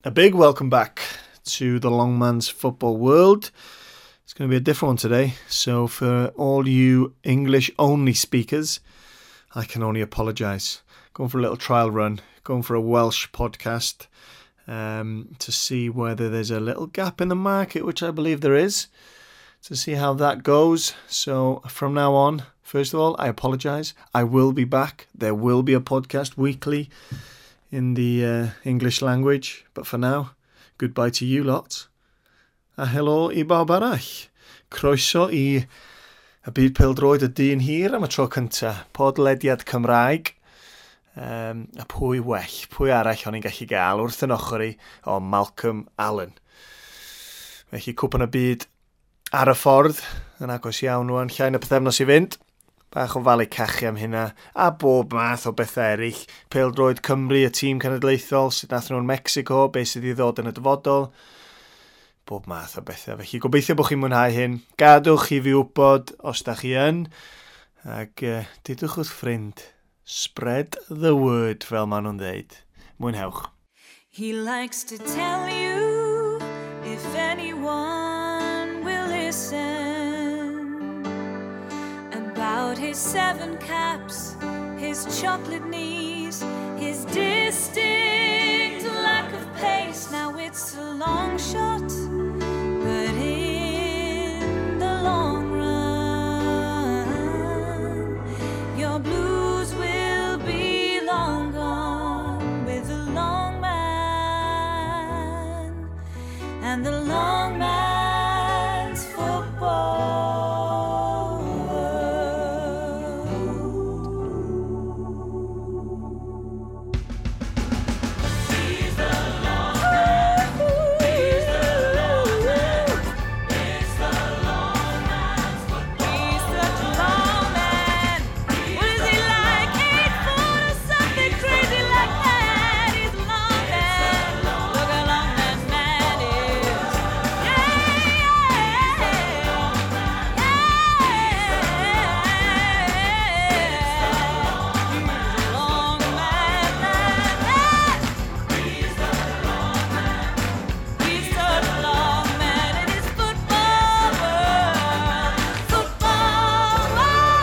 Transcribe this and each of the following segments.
A big welcome back to the Long Man's Football World. It's going to be a different one today. So for all you English only speakers, I can only apologise. Going for a little trial run, going for a Welsh podcast to see whether there's a little gap in the market, which I believe there is, to see how that goes. So from now on, first of all, I apologise. I will be back. There will be a podcast weekly in the English language. But for now, goodbye to you lot. A helo i bawb arall. Croeso i y byd pêl-droed y dyn hir am y tro cynta. Podlediad Cymraeg. A pwy well, pwy arall o'n i'n gallu gael wrth yn ochr i o Malcolm Allen. Felly Cwpan y Byd ar y ffordd, yn agos iawn rwan, llai na pythefnos i fynd. Bach o falu cachu am hynna, a bob math o bethau eraill. Pêl-droed Cymru, y tîm cenedlaethol, sut nath nhw'n Mexico, beth sydd i ddod yn y dyfodol. Bob math o bethau. Felly gobeithio bod chi'n mwynhau hyn. Gadwch i fi wybod os da chi yn. Ac dudwch wrth ffrind. Spread the word, fel maen nhw'n dweud. Mwynhewch. He likes to tell you if anyone will listen about his 7 caps, his chocolate knees, his distinct lack of pace. Now it's a long shot, but in the long run, your blues will be long gone with the long man and the long man's football world. He's the long man. He's the long man. It's the long man's football. He's such a long man. What is he like? 8 foot or something crazy like that. He's a long man. Look how long that man is. Yeah, yeah, yeah. He's a long man, man, man. He's the long man. He's such a long man in his football world. Football world.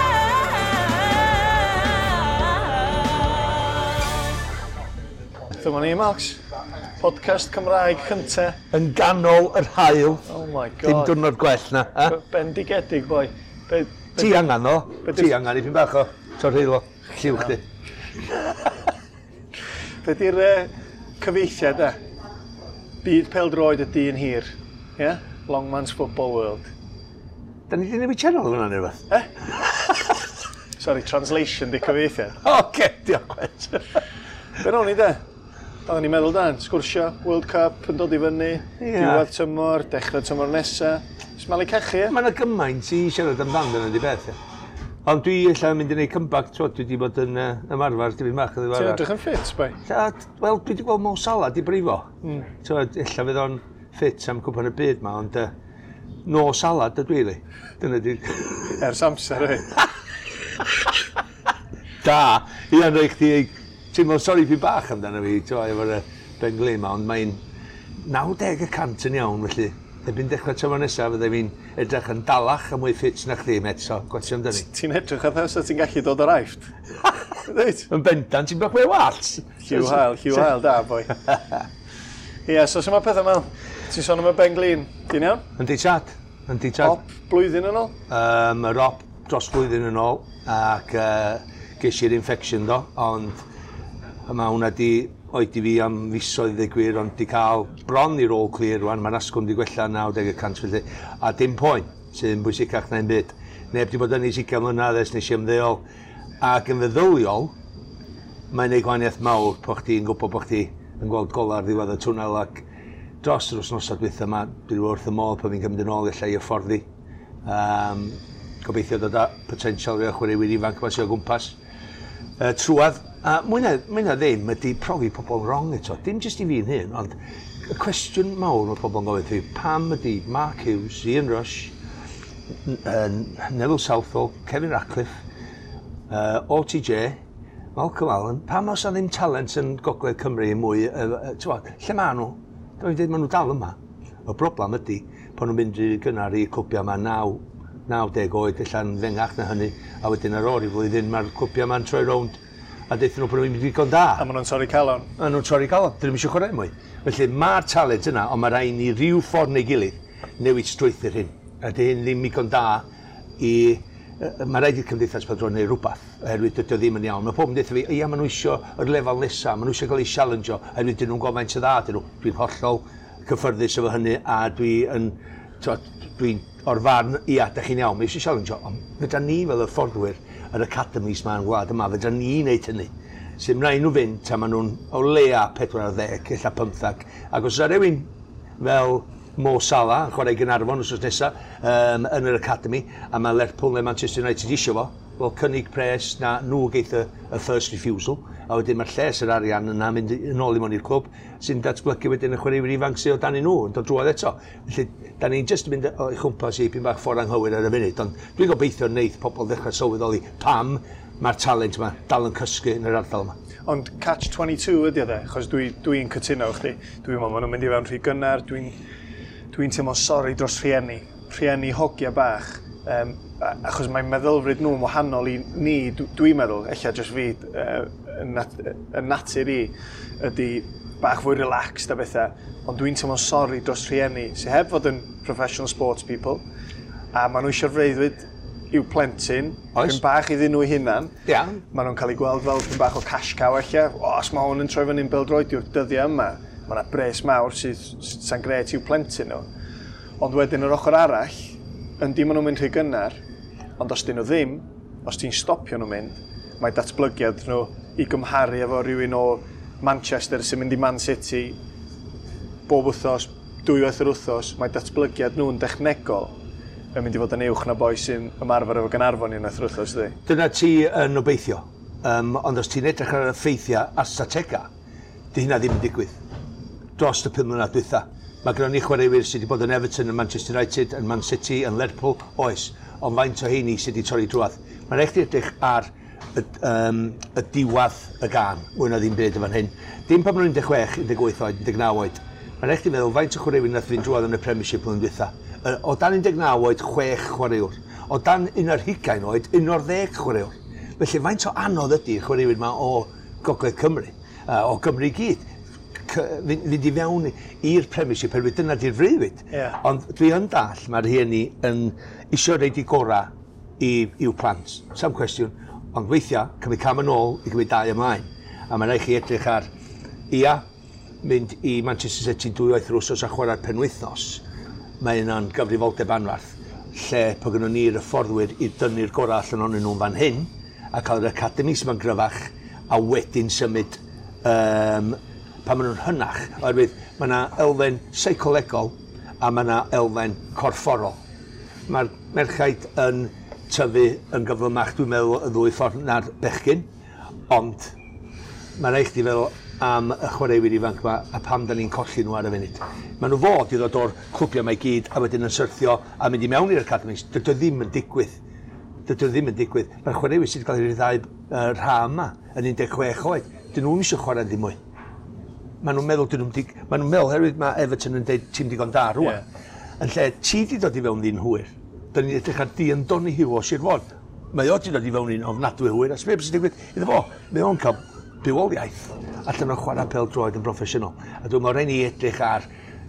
Dyma ni, Max. Podcast Cymraeg cynta. Yn ganol yr haul. Oh my Dim god. diwrnod gwell na. Ha? Bendigedig, boi. Ti angen o. Ti angen ipyn bach o torheilo. Lliw chdi. Be di'r cyfeithiad e? Byd pêl-droed y dyn hir. Yeah? Long Man's Football World. Da ni di newid channel hwnna neu rhywbeth? Sorry, translation di cyfeithiad. Oce, diolch wet. Be ro'n i de? Oedden ni'n meddwl dan, sgwrsio, World Cup yn dod i fyny, diwedd tymor, dechrau tymor nesa. Smalu cachu, ie? Mae yna gymaint i siarad amdan dyna di beth, ie. Ond dwi ella yn mynd i wneud comeback, t'wod, dwi wedi bod yn ymarfer dipyn bach yn Ti'n ddiweddar. edrych yn ffit, bai? Wel, dwi wedi gweld Mo Salah di brifo. T'wod, ella fydd o'n ffit am Cwpan y Byd ma, ond no salad ydw i, li. Dyna di... Ers amser, ei. Da, ia, rhaid chdi teimlo sori fi bach amdano fi, t'wod, efo'r ben glin ma, ond mae'n 90% yn iawn, felly. Erbyn dechrau tymor nesaf, fydde fi'n edrych yn dalach a mwy ffit na chdi, met, so gwatio amdani. Ti'n edrych atha sa ti'n gallu dod o'r Aifft. Reit. Yn bendant, ti'n bach mwy o wallt. Lliw hael, lliw hael, da, boi. Ie, so sut mae pethau, Mel? Ti'n sôn am y ben glin, ti'n iawn? Yndi tad, yndi tad. Op, blwyddyn yn ôl? Yr op dros blwyddyn yn ôl, ac ges i'r infection do, ond mae hwnna di oedi fi am fisoedd i ddweud gwir, ond di cael bron i'r all clear rwan, mae'r asgwrn di gwella 90% felly, a dim poen, sydd yn bwysicach na'n byd. Neb di bod yn ei 20 mlynedd ers nes i ymddeol, ac yn feddyliol, mae'n neud gwahaniaeth mawr po chdi'n gwybod bo chdi yn gweld golau ar ddiwedd y twnnel, ac dros yr wythnosau dwytha yma, dwi wrth y modd pan fi'n cymryd yn ôl ella i hyfforddi. Gobeithio dod â potensial rhai o chwaraewyr ifanc yma sydd o gwmpas. Trwad, a mwy na ddim ydy profi pobl wrong eto. Dim jyst i fi'n hyn, ond y cwestiwn mawr mae pobl yn gofyn fi, pam ydy Mark Hughes, Ian Rush, Neville Southall, Kevin Ratcliffe, OTJ, Malcolm Allen, pam oes 'na ddim talent yn Gogledd Cymru mwy, t'wod, lle ma' nhw? Dwi'n dweud, maen nhw dal yma. Y broblem ydy, pan nhw'n mynd rhy gynnar i clwbiau yma 9, 90 oed, ella'n fengach na hynny, a wedyn ar ôl i flwyddyn mae'r clwbiau yma'n troi rownd a deuthyn nhw bod nhw'n mynd digon da. A maen nhw'n torri calon. A nhw'n torri calon, dyn nhw'm eisiau chwarae mwy. Felly mae'r talent yna, ond mae rhaid ni ryw ffordd neu gilydd newid strwythur hyn. A dy hyn ddim digon da i... Mae rhaid i'r cymdeithas pêl-droed wneud rhywbeth, oherwydd dydy o ddim yn iawn. Mae pobl yn deutha fi, ia, maen nhw isio yr lefel nesaf, maen nhw eisiau cael eu challenge-o, oherwydd dyn nhw'n gwybod faint o dda dyn nhw. Dwi'n hollol cyffyrddus efo hynny, a dwi'n dwi o'r farn, ia, da chi'n iawn, mae eisiau challenge-o, ond fedra ni fel y fforddwyr, yr academies ma yn gwlad yma, fedra ni wneud hynny. Sy'n rhaid nhw fynd tan maen nhw'n o leia 40, ella 15. Ac os yna rhywun fel Mo Salah yn chwarae i Gaernarfon wsos nesaf yn yr academy, a mae Lerpwl neu Manchester United isio fo, wel cynnig pres na nhw geith y first refusal, a wedyn mae'r lles yr arian yna mynd yn ôl i mewn i'r clwb sy'n datblygu wedyn y chwaraewyr ifanc sydd o dan i nhw yn dod drwodd eto. Felly, da ni'n jyst yn mynd o'i chwmpas i pyn bach ffordd anghywir ar y funud, ond dwi'n gobeithio wneith pobl ddechrau sylweddoli pam mae'r talent yma dal yn cysgu yn yr ardal yma. Ond catch 22 ydy o de, achos dwi'n dwi cytuno efo chdi. Dwi'n meddwl maen nhw'n mynd i fewn rhy gynnar, dwi'n dwi teimlo sori dros rhieni, rhieni hogia bach, achos mae meddylfryd nhw'n wahanol i ni, dwi'n meddwl, ella jyst fi, y natur i, ydy bach fwy relaxed a bethau, ond dwi'n teimlo sori dros rhieni sydd heb fod yn professional sports people, a maen nhw eisiau'r freuddwyd i'w plentyn, Oes. pyn bach iddyn nhw eu hunan. Ia. Maen nhw'n cael eu gweld fel pyn bach o cash cow ella. O, os mae hwn yn troi fyny'n bêl-droediwr dyddiau yma, mae yna bres mawr sydd sy'n gret i'w plentyn nhw. Ond wedyn yr ochr arall, yndi maen nhw'n mynd rhy gynnar, ond os dyn nhw ddim, os ti'n stopio nhw'n mynd, mae datblygiad nhw i gymharu efo rhywun o Manchester sy'n mynd i Man City bob wythnos, dwywaith yr wythnos, mae datblygiad nhw'n dechnegol yn mynd i fod yn uwch na boi sy'n ymarfer efo Gaernarfon unwaith yr wythnos, ydy. Dyna ti yn obeithio. Ond os ti'n edrych ar y ffeithiau a statega, di hynna ddim yn digwydd. Dros y 5 mlynedd dwytha. Mae gennym ni chwaraewyr sydd wedi bod yn Everton, yn Manchester United, yn Man City, yn Lerpwl, oes. Ond faint o heini sydd wedi torri drwadd. Mae'n rhaid chdi edrych ar y diwadd y gan, mwy na ddim byd yn fan hyn. Dim pan maen nhw'n 16, 18 oed, 19 oed. Mae'n rhaid chdi feddwl faint o chwaraewyr nath fynd drwadd yn y Premiership blwyddyn dwytha. O dan 19 oed, 6 chwaraewr. O dan 21 oed, 11 chwaraewr. Felly faint o anodd ydy chwaraewyr yma o Gogledd Cymru, o Gymru i gyd, fynd i fewn i'r Premiership, oherwydd dyna di'r freuddwyd. Ond dwi yn dall, mae'r rhieni yn isio reid i gorau i'w plant. Sam cwestiwn. Ond weithiau, cymryd cam yn ôl i gymryd dau ymlaen. A mae'n rhaid chi edrych ar, ia, mynd i Manchester City dwywaith yr wsos a chwarae'r penwythnos. Mae yna'n gyfrifoldeb anferth, lle po gynnon ni'r hyfforddwyr i dynnu'r gorau allan ohonyn nhw'n fan hyn, a cael yr academy sy'n ma'n gryfach, a wedyn symud pan maen nhw'n hynach, oherwydd mae yna elfen seicolegol a mae yna elfen corfforol. Mae'r merchaid yn tyfu yn gyflymach, dwi'n meddwl, y ddwy ffordd na'r bechgyn, ond mae'n rhaid chdi feddwl am y chwaraewyr ifanc yma a pam da ni'n colli nhw ar y funud. Maen nhw fod i ddod o'r clwbiau yma i gyd a wedyn yn syrthio a mynd i mewn i'r academies. Dydy o ddim yn digwydd. Dydy o ddim yn digwydd. Mae'r chwaraewyr sydd wedi cael eu rhyddhau yr ha yma yn 16 oed. Dyn nhw'n eisiau chwarae ddim mwy. Maen nhw'n meddwl, dyn nhw'n dig... Maen nhw'n meddwl, herwydd mae Everton yn deud ti'n digon da rwan. Yn lle ti di dod i fewn ddyn hwyr. Da ni'n edrych ar Dion Donoghue o Sir Fôn. Mae o di dod i fewn un ofnadwy hwyr. A sbeth sy'n digwydd iddo fo? Mae o'n cael bywoliaeth allan o chwarae pêl-droed yn broffesiynol. A dwi'n meddwl rhaid ni edrych ar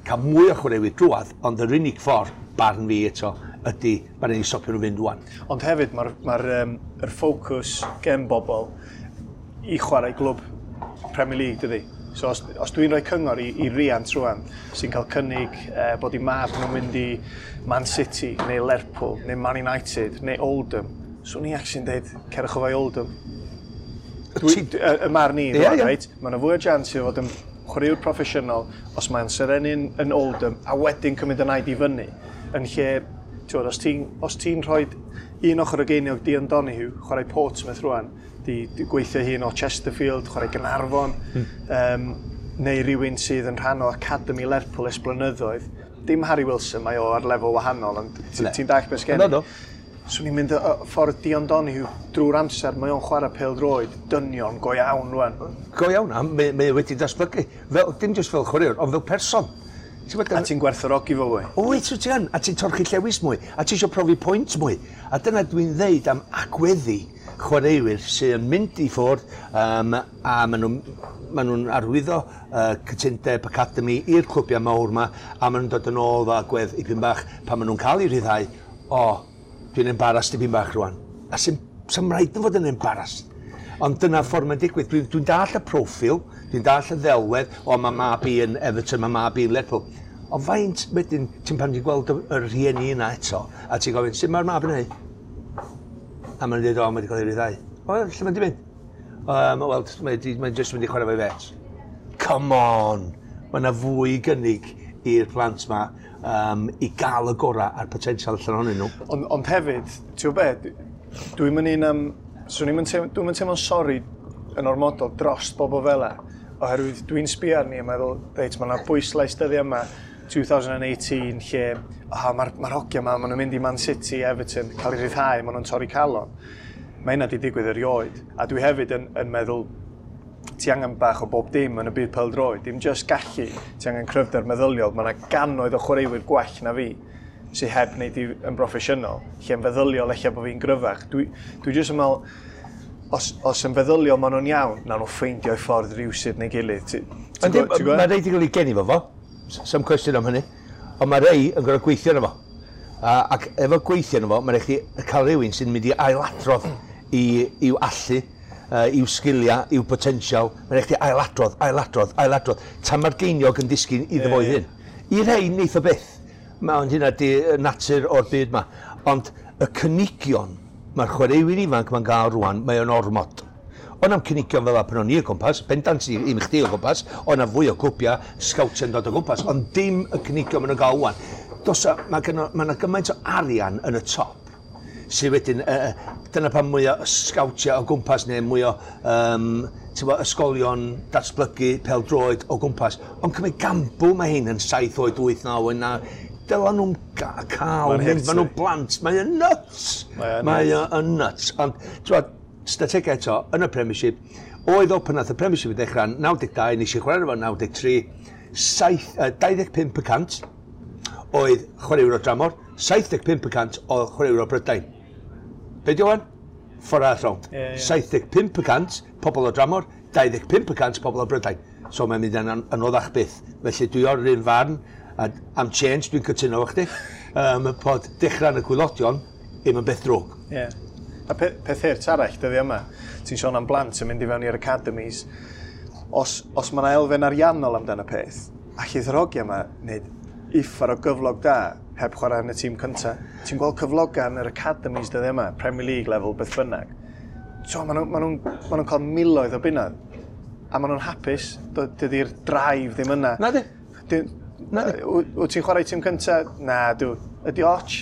cael mwy o chwaraewyr drwadd, ond yr unig ffordd, barn fi eto, ydy mae rhaid ni stopio nhw fynd rwan. Ond hefyd mae'r ma yr ffocws gen bobl i chwarae glwb Premier League, dydy. So os dwi'n rhoi cyngor i riant rwan sy'n cael cynnig bod i mab nhw'n mynd i Man City neu Lerpwl neu Man United neu Oldham, swn i actually'n deud cerwch o fo i Oldham. Y marn i, rwan, reit? Mae yna fwy o chance i fod yn chwaraewr proffesiynol os mae'n serennu'n yn Oldham a wedyn cymryd y naid i fyny. Yn lle, ti'n os ti'n rhoi un ochr o geiniog Dion Donoghue, chwarae Portsmouth rwan, di gweithio hun o Chesterfield, chwarae Gaernarfon, neu rhywun sydd yn rhan o Academy Lerpwl ers blynyddoedd. Dim Harry Wilson, mae o ar lefel wahanol, ond ti'n dallt beth sgen i. No, no. Swn i'n mynd y ffordd Dion Donoghue drwy'r amser, mae o'n chwarae pêl-droed dynion go iawn rwan. Go iawn, a mae wedi datblygu. Fel, dim jyst fel chwaraewr, ond fel person. A ti'n gwerthfawrogi fo fwy. Wyt, wyt ti yn, a ti'n torchi llewis mwy, a ti eisiau profi pwynt mwy. A dyna dwi'n ddeud am agweddu chwaraewyr sy'n mynd i ffwrdd a maen nhw'n arwyddo cytundeb academy i'r clwbiau mawr yma, a maen nhw'n dod yn ôl fo agwedd ipyn bach pan maen nhw'n cael eu rhyddhau, o, dwi'n embarrassed dipyn bach rwan. A sy'n rhaid yn fod yn embarrassed. Ond dyna ffordd mae'n digwydd. Dwi'n dall y proffil, dwi'n dall y ddelwedd, o, mae mab i yn Everton, mae mab i yn Lerpwl. Ond faint wedyn, ti'n pan ti'n gweld y rhieni yna eto, a ti'n gofyn, sut mae'r mab yn neud? A maen nhw'n dweud, o, mae wedi cael ei ryddhau. O, lle mae'n di mynd? Wel, mae'n jyst mynd i chwarae fo'i fets. Come on! Mae yna fwy gynnig i'r plant ma i gael y gorau a'r potensial allan ohonyn nhw. Ond hefyd, ti'n gwybod be, dwi'n mynd un am... Swn i'n dwi'n mynd teimlo'n sori yn ormodol dros bobl fel 'a, oherwydd dwi'n sbio arni a meddwl, reit, mae yna bwyslais dyddiau yma, 2018, lle mae'r ma hogia yma, maen nhw'n mynd i Man City, Everton, cael eu rhyddhau, maen nhw'n torri calon. Mae hynna wedi digwydd erioed. A dwi hefyd yn meddwl, ti angen bach o bob dim yn y byd pêl-droed, dim just gallu, ti angen cryfder meddyliol. Mae yna gannoedd o chwaraewyr gwell na fi sydd heb wneud i yn broffesiynol, lle yn feddyliol ella bod fi'n gryfach. Dwi jyst yn meddwl, os yn feddyliol maen nhw'n iawn, nawn nhw ffeindio eu ffordd rywsut neu gilydd. Mae rei di gael ei geni fo, some cwestiwn am hynny, ond mae rei yn gorfod gweithio arno fo. Ac efo gweithio arno fo, mae'n rhaid chdi cael rhywun sy'n mynd i ailadrodd i'w allu, i'w sgiliau, i'w potensial. Mae'n rhaid chdi ailadrodd, ailadrodd, ailadrodd. Tan mae'r geiniog yn disgyn iddo fo'i hun. I rei, neith o byth. Ond hynna di natur o'r byd ma. Ond y cynigion, mae'r chwaraewyr ifanc ma'n gael rwan, mae o'n ormod. Ond am cynigion fel pan o'n i o gwmpas, bendant i chdi o gwmpas, o'n fwy o clwbiau, sgawtiau'n dod o gwmpas, ond dim y cynigion maen nhw'n gael rwan. Mae yna gymaint o arian yn y top, sydd wedyn, dyna pan mwy o sgawtiau o gwmpas neu mwy o ysgolion datblygu pêl-droed o gwmpas. Ond cymryd gambl mae hyn yn 7 oed, 8, 9 oed, 9, dyla nhw'n cael, maen nhw'n blant, mae o'n nuts. Mae o'n nuts. Ond, ti'n strategau eto, yn y Premiership, oedd o pan nath y Premiership i ddechrau 92, nes i chwarae efo 93, 25% oedd chwaraewyr o dramor, 75% oedd chwaraewyr o Brydain. Be di o'n? Ffordd arall rownd. 75% pobl o dramor, 25% pobl o Brydain. So mae'n mynd yn anoddach byth. Felly dwi o'r un farn, a am change, dwi'n cytuno efo chdi, bod dechrau yn y gwaelodion ddim yn beth drwg. Yeah. A peth hurt arall dyddi yma, ti'n sôn am blant yn mynd i fewn i'r academies, os mae yna elfen ariannol amdano peth, allith yr hogia yma wneud uffar o gyflog da heb chwarae yn y tîm cyntaf. Ti'n gweld cyflogau yn yr academies dyddi yma, Premier League level, beth bynnag. So, maen nhw'n cael miloedd o bunnoedd, a maen nhw'n hapus, dydy'r drive ddim yna. Na di. Wyt ti'n chwarae tîm cyntaf? Na, dw. Ydy och?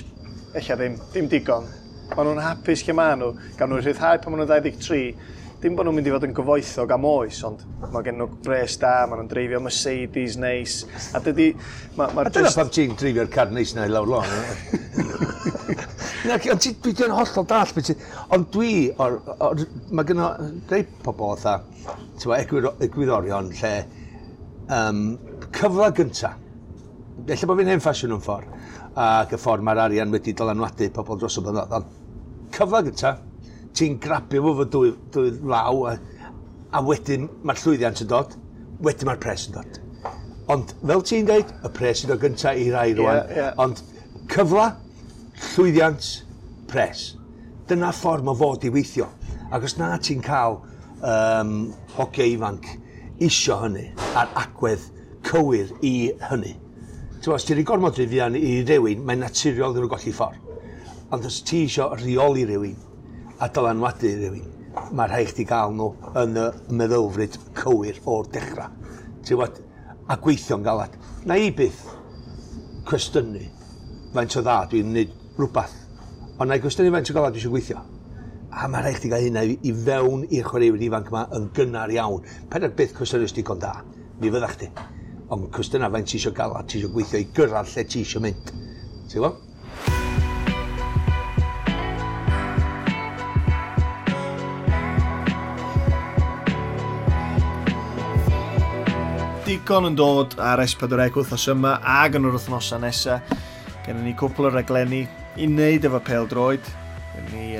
Ella ddim, dim digon. Maen nhw'n hapus lle maen nhw, gawn nhw rhyddhau pan maen nhw'n 23. Dim bod nhw'n mynd i fod yn gyfoethog am oes, ond mae gen nhw bres da, maen nhw'n dreifio Mercedes neis. A dydy... A dyna pam ti'n dreifio'r car neis na i lawr lôn. Na, ond dwi'n hollol dall. Ond dwi, mae gynno rei pobl fatha, egwyddorion lle cyfle gynta. Ella bod fi'n hen ffasiwn yn ffordd, ac y ffordd mae'r arian wedi dylanwadu pobl dros y blynyddoedd. Ond cyfle gynta, ti'n grabio fo fo dwy law, a wedyn mae'r llwyddiant yn dod, wedyn mae'r pres yn dod. Ond fel ti'n dweud, y pres yn dod gynta i rai rwan. Yeah. Ond cyfle, llwyddiant, pres. Dyna ffordd mae fod i weithio. Ac os na ti'n cael hogia ifanc isio hynny, a'r agwedd cywir i hynny. Os ti'n rhoi gormod rhy fuan i rywun, mae'n naturiol iddyn nhw golli ffordd. Ond os ti isio rheoli rywun a dylanwadu rywun, mae rhaid chdi gael nhw yn y meddylfryd cywir o'r dechrau. Ti'n gwbod, a gweithio'n galad. Na i byth cwestiynu faint o dda dwi'n gwneud rhywbeth, ond na i gwestiynu faint o galad dwi eisiau gweithio. A mae rhaid chdi gael hynna i fewn i'r chwaraewyr ifanc yma yn gynnar iawn. Paid â byth cwestiynu os digon da, mi fydda chdi. Ond cwestiynau faint ti eisiau galad, ti eisiau gweithio i gyrraedd lle ti eisiau mynd. Ti'n gwybod? Digon yn dod ar S4C wythnos yma ag yn yr wythnosau nesaf. Gennym ni cwpl o raglenni i wneud efo pêl-droed. Gennym ni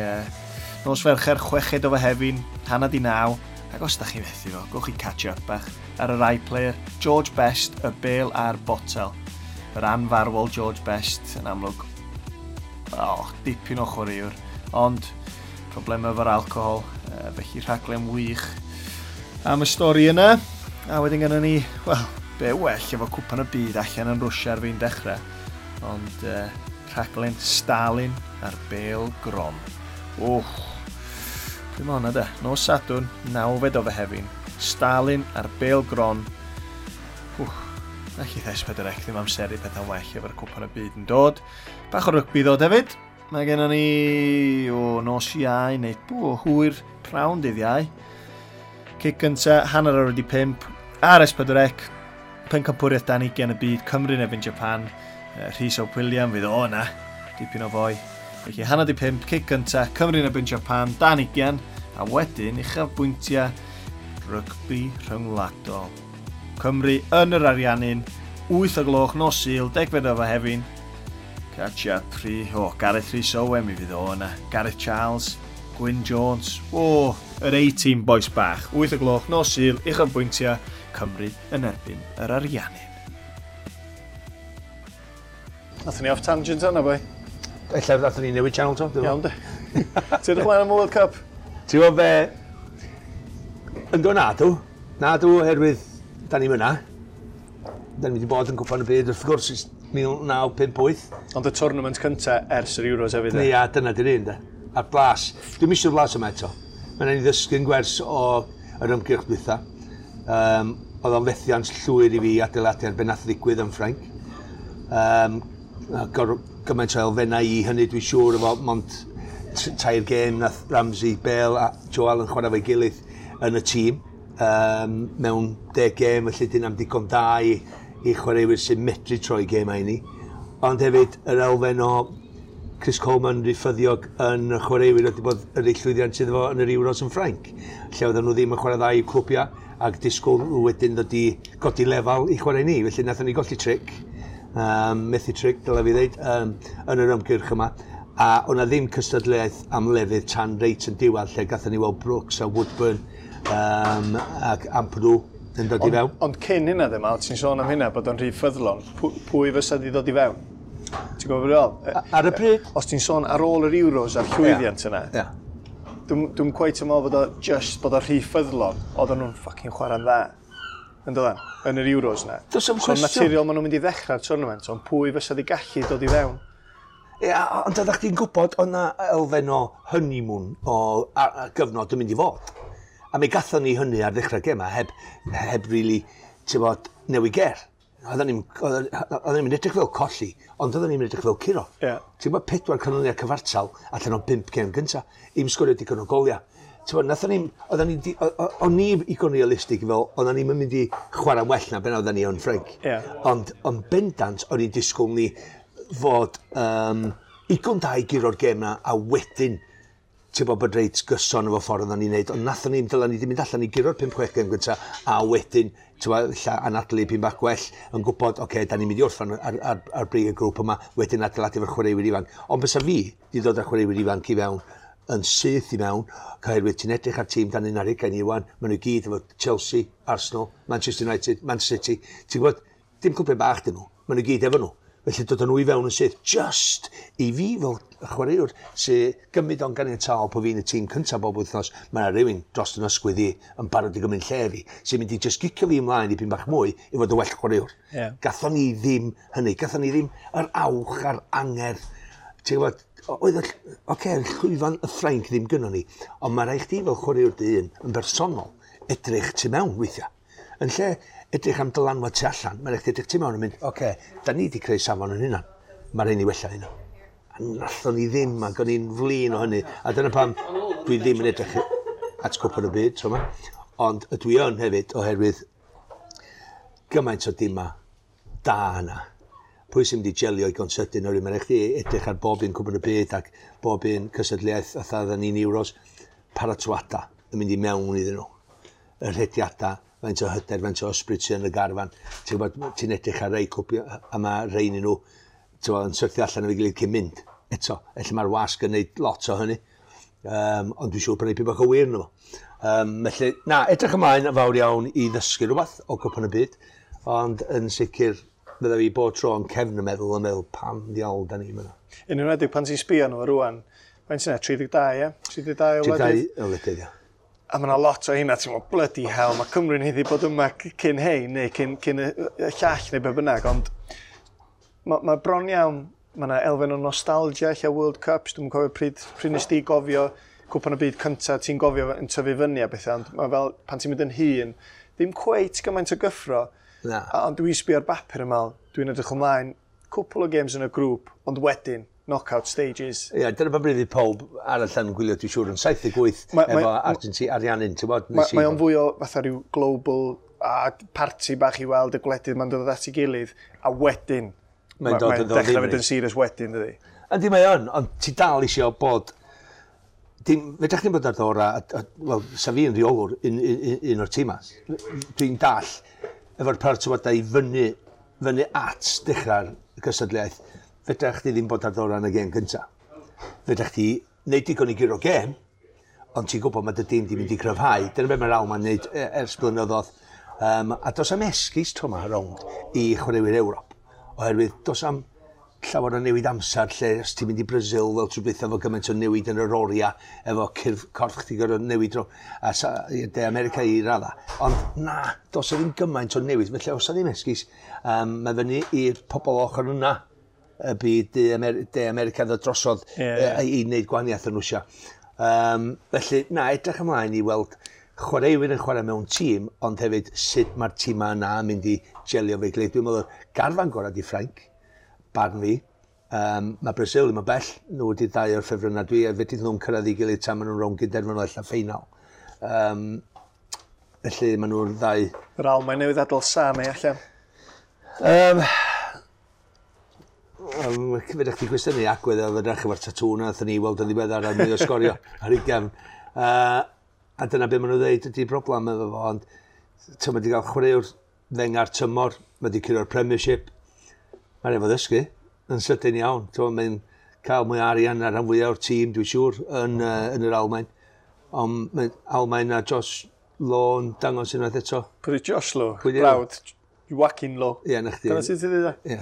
nos Fercher 6 o Fehefin, 8:30. Ac os da chi fethu fo, gwch chi catch up bach ar yr iPlayer. George Best, y bêl a'r botel. Yr anfarwol George Best yn amlwg. Oh, dipyn o chwaraewr. Ond problemau efo'r alcohol, felly rhaglen wych am y stori yna. A wedyn gynnon ni, wel, be well efo Cwpan y Byd allan yn Rwsia ar fin dechrau. Ond rhaglen Stalin a'r Bêl Gron. Wch, pryd mae hwnna de? Nos Sadwrn, 9 o Fehefin. Stalin a'r Bêl Gron. Wch, allith S4C ddim amseru pethau'n well efo'r Cwpan y Byd yn dod. Bach o rygbi ddod hefyd. Mae gennym ni o nos Iau neu hwyr prawn dydd Iau. Cic gynta, 5:30, ar S4C, pencampwriaeth dan 20 y byd, Cymru yn erbyn Japan, Rhys Ap William fydd o yna, dipyn o foi. Felly 4:30, cic gynta, Cymru yn erbyn Japan, dan 20, a wedyn uchafbwyntiau rygbi rhyngwladol. Cymru yn yr Ariannin, 8 o gloch nos Sul, 10 o Fehefin. Catch up, Gareth Rhys Owen mi fydd o yna, Gareth Charles, Gwyn Jones, yr A-team boys bach. 8 o gloch nos Sul, uchafbwyntiau Cymru yn erbyn yr Ariannin. Nathon ni off tangent yna, boi. Ella nathon ni newid channel to. Iawn, de. Ti'n edrych mlaen am y World Cup? Ti'n gwybod be? Ynddo na dw. Na dw, oherwydd da ni'n myna. Da ni wedi bod yn Cwpan y Byd, wrth gwrs, ers 1958. Ond y tournament cynta ers yr Euros hefyd. Ia, dyna di'r un, de. A'r blas. Dwi'n eisiau blas yma eto. Mae'n rhaid i ddysgu'n gwers o yr ymgyrch dwytha. Oedd o'n fethiant llwyr i fi adeiladu ar be nath ddigwydd yn Ffrainc. Gymaint o elfennau i hynny dwi'n siŵr efo mond 3 gêm nath Ramsey, Bale a Joe Allen chwarae fo'i gilydd yn y tîm. Mewn 10 gêm, felly dyn am digon da i chwaraewyr sy'n medru troi gêmau i ni. Ond hefyd yr elfen o Chris Coleman rhyffyddiog yn y chwaraewyr wedi bod yr ei llwyddiant iddo fo yn yr Euros yn Ffrainc, lle oedden nhw ddim yn chwarae dda i'w clwbiau ac disgwyl nhw wedyn ddod i godi lefel i chwarae ni. Felly nathon ni golli tric, methu tric, dylai fi ddeud, yn yr ymgyrch yma. A o'na ddim cystadleuaeth am lefydd tan reit yn diwedd, lle gathon ni weld Brooks a Woodburn ac Ampadu yn dod i fewn. Ond cyn hynna ddim, Al, ti'n sôn am hynna, bod o'n rhy ffyddlon, pwy fysa di ddod i fewn? Ti'n gwybod beth dwi'n feddwl? Ar y pryd? Os ti'n sôn ar ôl yr Euros a'r llwyddiant yna, dwi'n cweit yn meddwl bod o just bod o rhy ffyddlon, oedden nhw'n fucking chwarae'n dda. Yn dod yn yr Euros yna. Does 'am So cwestiwn. naturiol maen nhw'n mynd i ddechrau'r tournament, ond pwy fysa di gallu dod i fewn? Ia, ond oeddech chdi'n gwybod o'na elfen o honeymoon o gyfnod yn mynd i fod. A mi gathon ni hynny ar ddechrau gema, heb really, ti'n bod, newid ger. Oedden ni'n edrych fel colli, ond oedden ni'n edrych fel curo. Ti'n bod, 4 canlyniad cyfartal allan o 5 gêm gynta, i'm sgorio digon o goliau. Ti'n bod, nathon ni'n, oedden ni, o'n ni igon realistig fel, oedden ni'n mynd i chwarae'n well na ben oedden ni yn Ffrainc. Ond bendant, o'n i'n disgwyl ni fod igon da i guro'r gêm na, a wedyn ti'n bod bod reit gyson efo ffordd oedden ni'n neud, ond nathon ni, dyla ni wedi mynd allan i guro'r 5-6 gêm gynta, a wedyn, ti'n bod, ella anadlu pyn bach gwell, yn gwybod, oce, da ni'n mynd i orffan ar brig y grŵp yma, wedyn adeiladu efo'r chwaraewyr ifanc. Ond bysa fi di dod â chwaraewyr ifanc i fewn, yn syth i mewn, oherwydd ti'n edrych ar tîm dan 21 i wan, maen nhw gyd efo Chelsea, Arsenal, Manchester United, Man City, ti'n gwybod, dim clwbiau bach dyn nhw, maen nhw gyd efo nhw. Felly dod â nhw i fewn yn syth, just i fi fel chwaraewr sy'n gymryd o'n ganiataol po fi'n y tîm cyntaf bob wythnos, mae yna rhywun dros yn ysgwydd i yn barod i gymryd lle fi, sy'n mynd i just gicio fi ymlaen i pyn bach mwy i fod yn well chwaraewr. Gathon ni ddim hynny, gathon ni ddim yr awch a'r angerdd. Ti'n gwybod, oedd y llwyfan y Ffrainc ddim gynnon ni, ond mae rhaid chdi fel chwaraewr dy hun yn bersonol edrych tu mewn weithiau. Yn lle edrych am dylanwad tu allan, mae'n rhaid edrych tu mewn yn mynd, oce, da ni wedi creu safon yn hynna, mae rhaid ni wella hynna. A nathon ni ddim, ac o'n i'n flin o hynny. A dyna pam dwi ddim yn edrych at Cwpan y Byd, tro yma. Ond ydw i yn hefyd, oherwydd gymaint o dima da yna. Pwy sy'n mynd i jelio i gonsydyn, oherwydd mae'n rhaid chdi edrych ar bob un Cwpan y Byd ac bob un cystadleuaeth fatha oedden ni'n Euros, paratoada yn mynd i mewn iddyn nhw. Y rhediadau, Faint o hyder, faint o ysbryd sydd yn y garfan. Ti'n gwybod, ti'n edrych ar rei cwpio, a mae rhain nhw, ti'n gwybod, yn syrthio allan efo'i gilydd cyn mynd. Eto, ella mae'r wasg yn neud lot o hynny. Ond dwi'n siŵr bod yna bach o wir yno fo. Felly, na, edrych ymlaen yn fawr iawn i ddysgu rhywbeth o Gwpan y Byd, ond yn sicr fydda fi bob tro yn cefn y meddwl yn meddwl pam ddiawl da ni yma. Yn enwedig pan ti'n sbio nhw rwan, faint sy'n 32, ie? 32 o wledydd? 32 o wledydd, ie. A mae yna lot o hynna, ti'n meddwl, bloody hell, mae Cymru'n haeddu bod yma cyn hein, neu cyn y llall, neu be bynnag, ond mae bron iawn, mae yna elfen o nostalgia, lle World Cups, dwi'n cofio pryd nes di gofio Cwpan y Byd cyntaf, ti'n gofio yn tyfu fyny a bethau, ond mae fel, pan ti'n mynd yn hŷn, ddim cweit gymaint o gyffro. Na. Ond dwi'n sbio ar bapur yma, dwi'n edrych ymlaen, cwpl o games yn y grŵp, ond wedyn, knockout stages. Ie, dyna pa bryd i pawb arall yn gwylio, dwi'n siŵr, yn 78 efo Argentina, Ariannin, ti'n bod? Mae o'n fwy o fatha rhyw global a party bach i weld y gwledydd mae'n dod at ei gilydd, a wedyn, mae'n dod yn dechrau fynd yn serious wedyn, dydy. Yndi, mae o'n, ond ti dal eisiau bod... Dim, fedrwch chi'n bod ar ddora, wel, sa fi yn rheolwr un o'r tîmas. Dwi'n dall efo'r paratoadau i fyny at dechrau'r gystadleuaeth. Fedrwch chi ddim bod ar ddora yn y gêm gyntaf. Fedrwch chi wneud digon i guro gêm, ond ti'n gwybod mae dy dîm di mynd i cryfhau. Dyna beth mae'r Almaen wneud ers blynyddoedd. A dos am esgus tro yma rownd i chwaraewyr Ewrop, oherwydd dos am llawer o newid amser lle os ti'n mynd i Brazil fel trwy beth efo gymaint o newid yn yr oriau, efo corff chdi gorfod newid a De America i radda. Ond na, dos o ddim gymaint o newid, felly os o ddim esgus, mae fyny i'r pobl ochr yna y byd De America ddod drosodd i wneud gwahaniaeth yn Rwsia. Felly, na, edrych ymlaen i weld chwaraewyr yn chwarae mewn tîm, ond hefyd sut mae'r tîmau yna yn mynd i gelio fe'i gilydd. Dwi'n meddwl, garfan gorau di Ffrainc, barn fi. Mae Brazil ddim yn bell, nhw wedi dau o'r ffefrynnau dwi, a fedrith nhw'n cyrraedd ei gilydd tan maen nhw'n rownd gynderfynol ella ffeinal. Felly maen nhw'r ddau. Yr Almaen newydd adael Sane allan. Fedrwch chi gwestiynu agwedd oedd yn edrych efo'r tatŵ na wnaethon ni weld yn ddiweddar ar mwy o sgorio ar ei gefn. A dyna beth maen nhw'n dweud ydy'r broblem efo fo, ond mae wedi cael chwaraewr ddeng ar tymor, mae wedi curo'r Premiership, mae'n efo ddysgu yn sydyn iawn. Mae'n cael mwy o arian ar rhan fwyaf o'r tîm, dwi'n siŵr, yn yr Almaen. Ond mae Almaen a Josh Law yn dangos unwaith eto. Pwy ydi Josh Law? Brawd, Joachim Law. Ie, na chdi. Dyna sut ti'n dweud? Ie.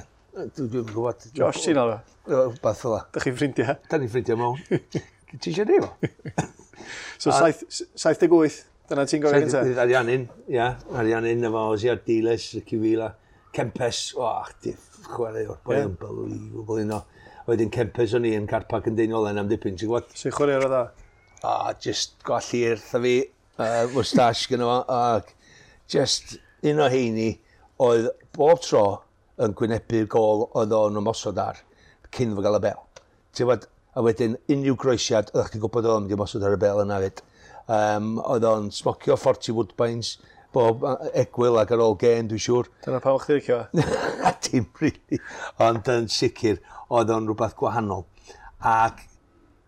Dwi'n gwybod. Josh, ti'n alw? Rhywbeth fel 'a. Dych chi'n ffrindiau? Da ni'n ffrindiau mewn. Ti eisiau rhif o? So, 78, dyna ti'n gofio gyntaf? Ariannin, ia. Ariannin efo Ozzy Ardiles, Ricky Villa, Kempes, o, chdi, chwaraewr, boi unbelievable un o. Wedyn Kempes o'n i yn car park yn Deiniolen am dipyn, ti'n gwybod? Sy'n chwaraewr o dda? O, just gwallt wrtha fi, moustache gyda fo, ac just un o heini oedd bob tro yn gwynebu'r gôl oedd o'n ymosod ar cyn fo gael y bel. Ti'n gwybod, a wedyn unrhyw groesiad, oeddech chdi'n gwybod oedd o'n mynd i ymosod ar y bel yna fyd. Oedd o'n smocio 40 Woodbines, bob egwyl ac ar ôl gêm, dwi'n siŵr. Dyna pam o'ch chdi licio fo? Dim really, ond yn sicr oedd o'n rhywbeth gwahanol. Ac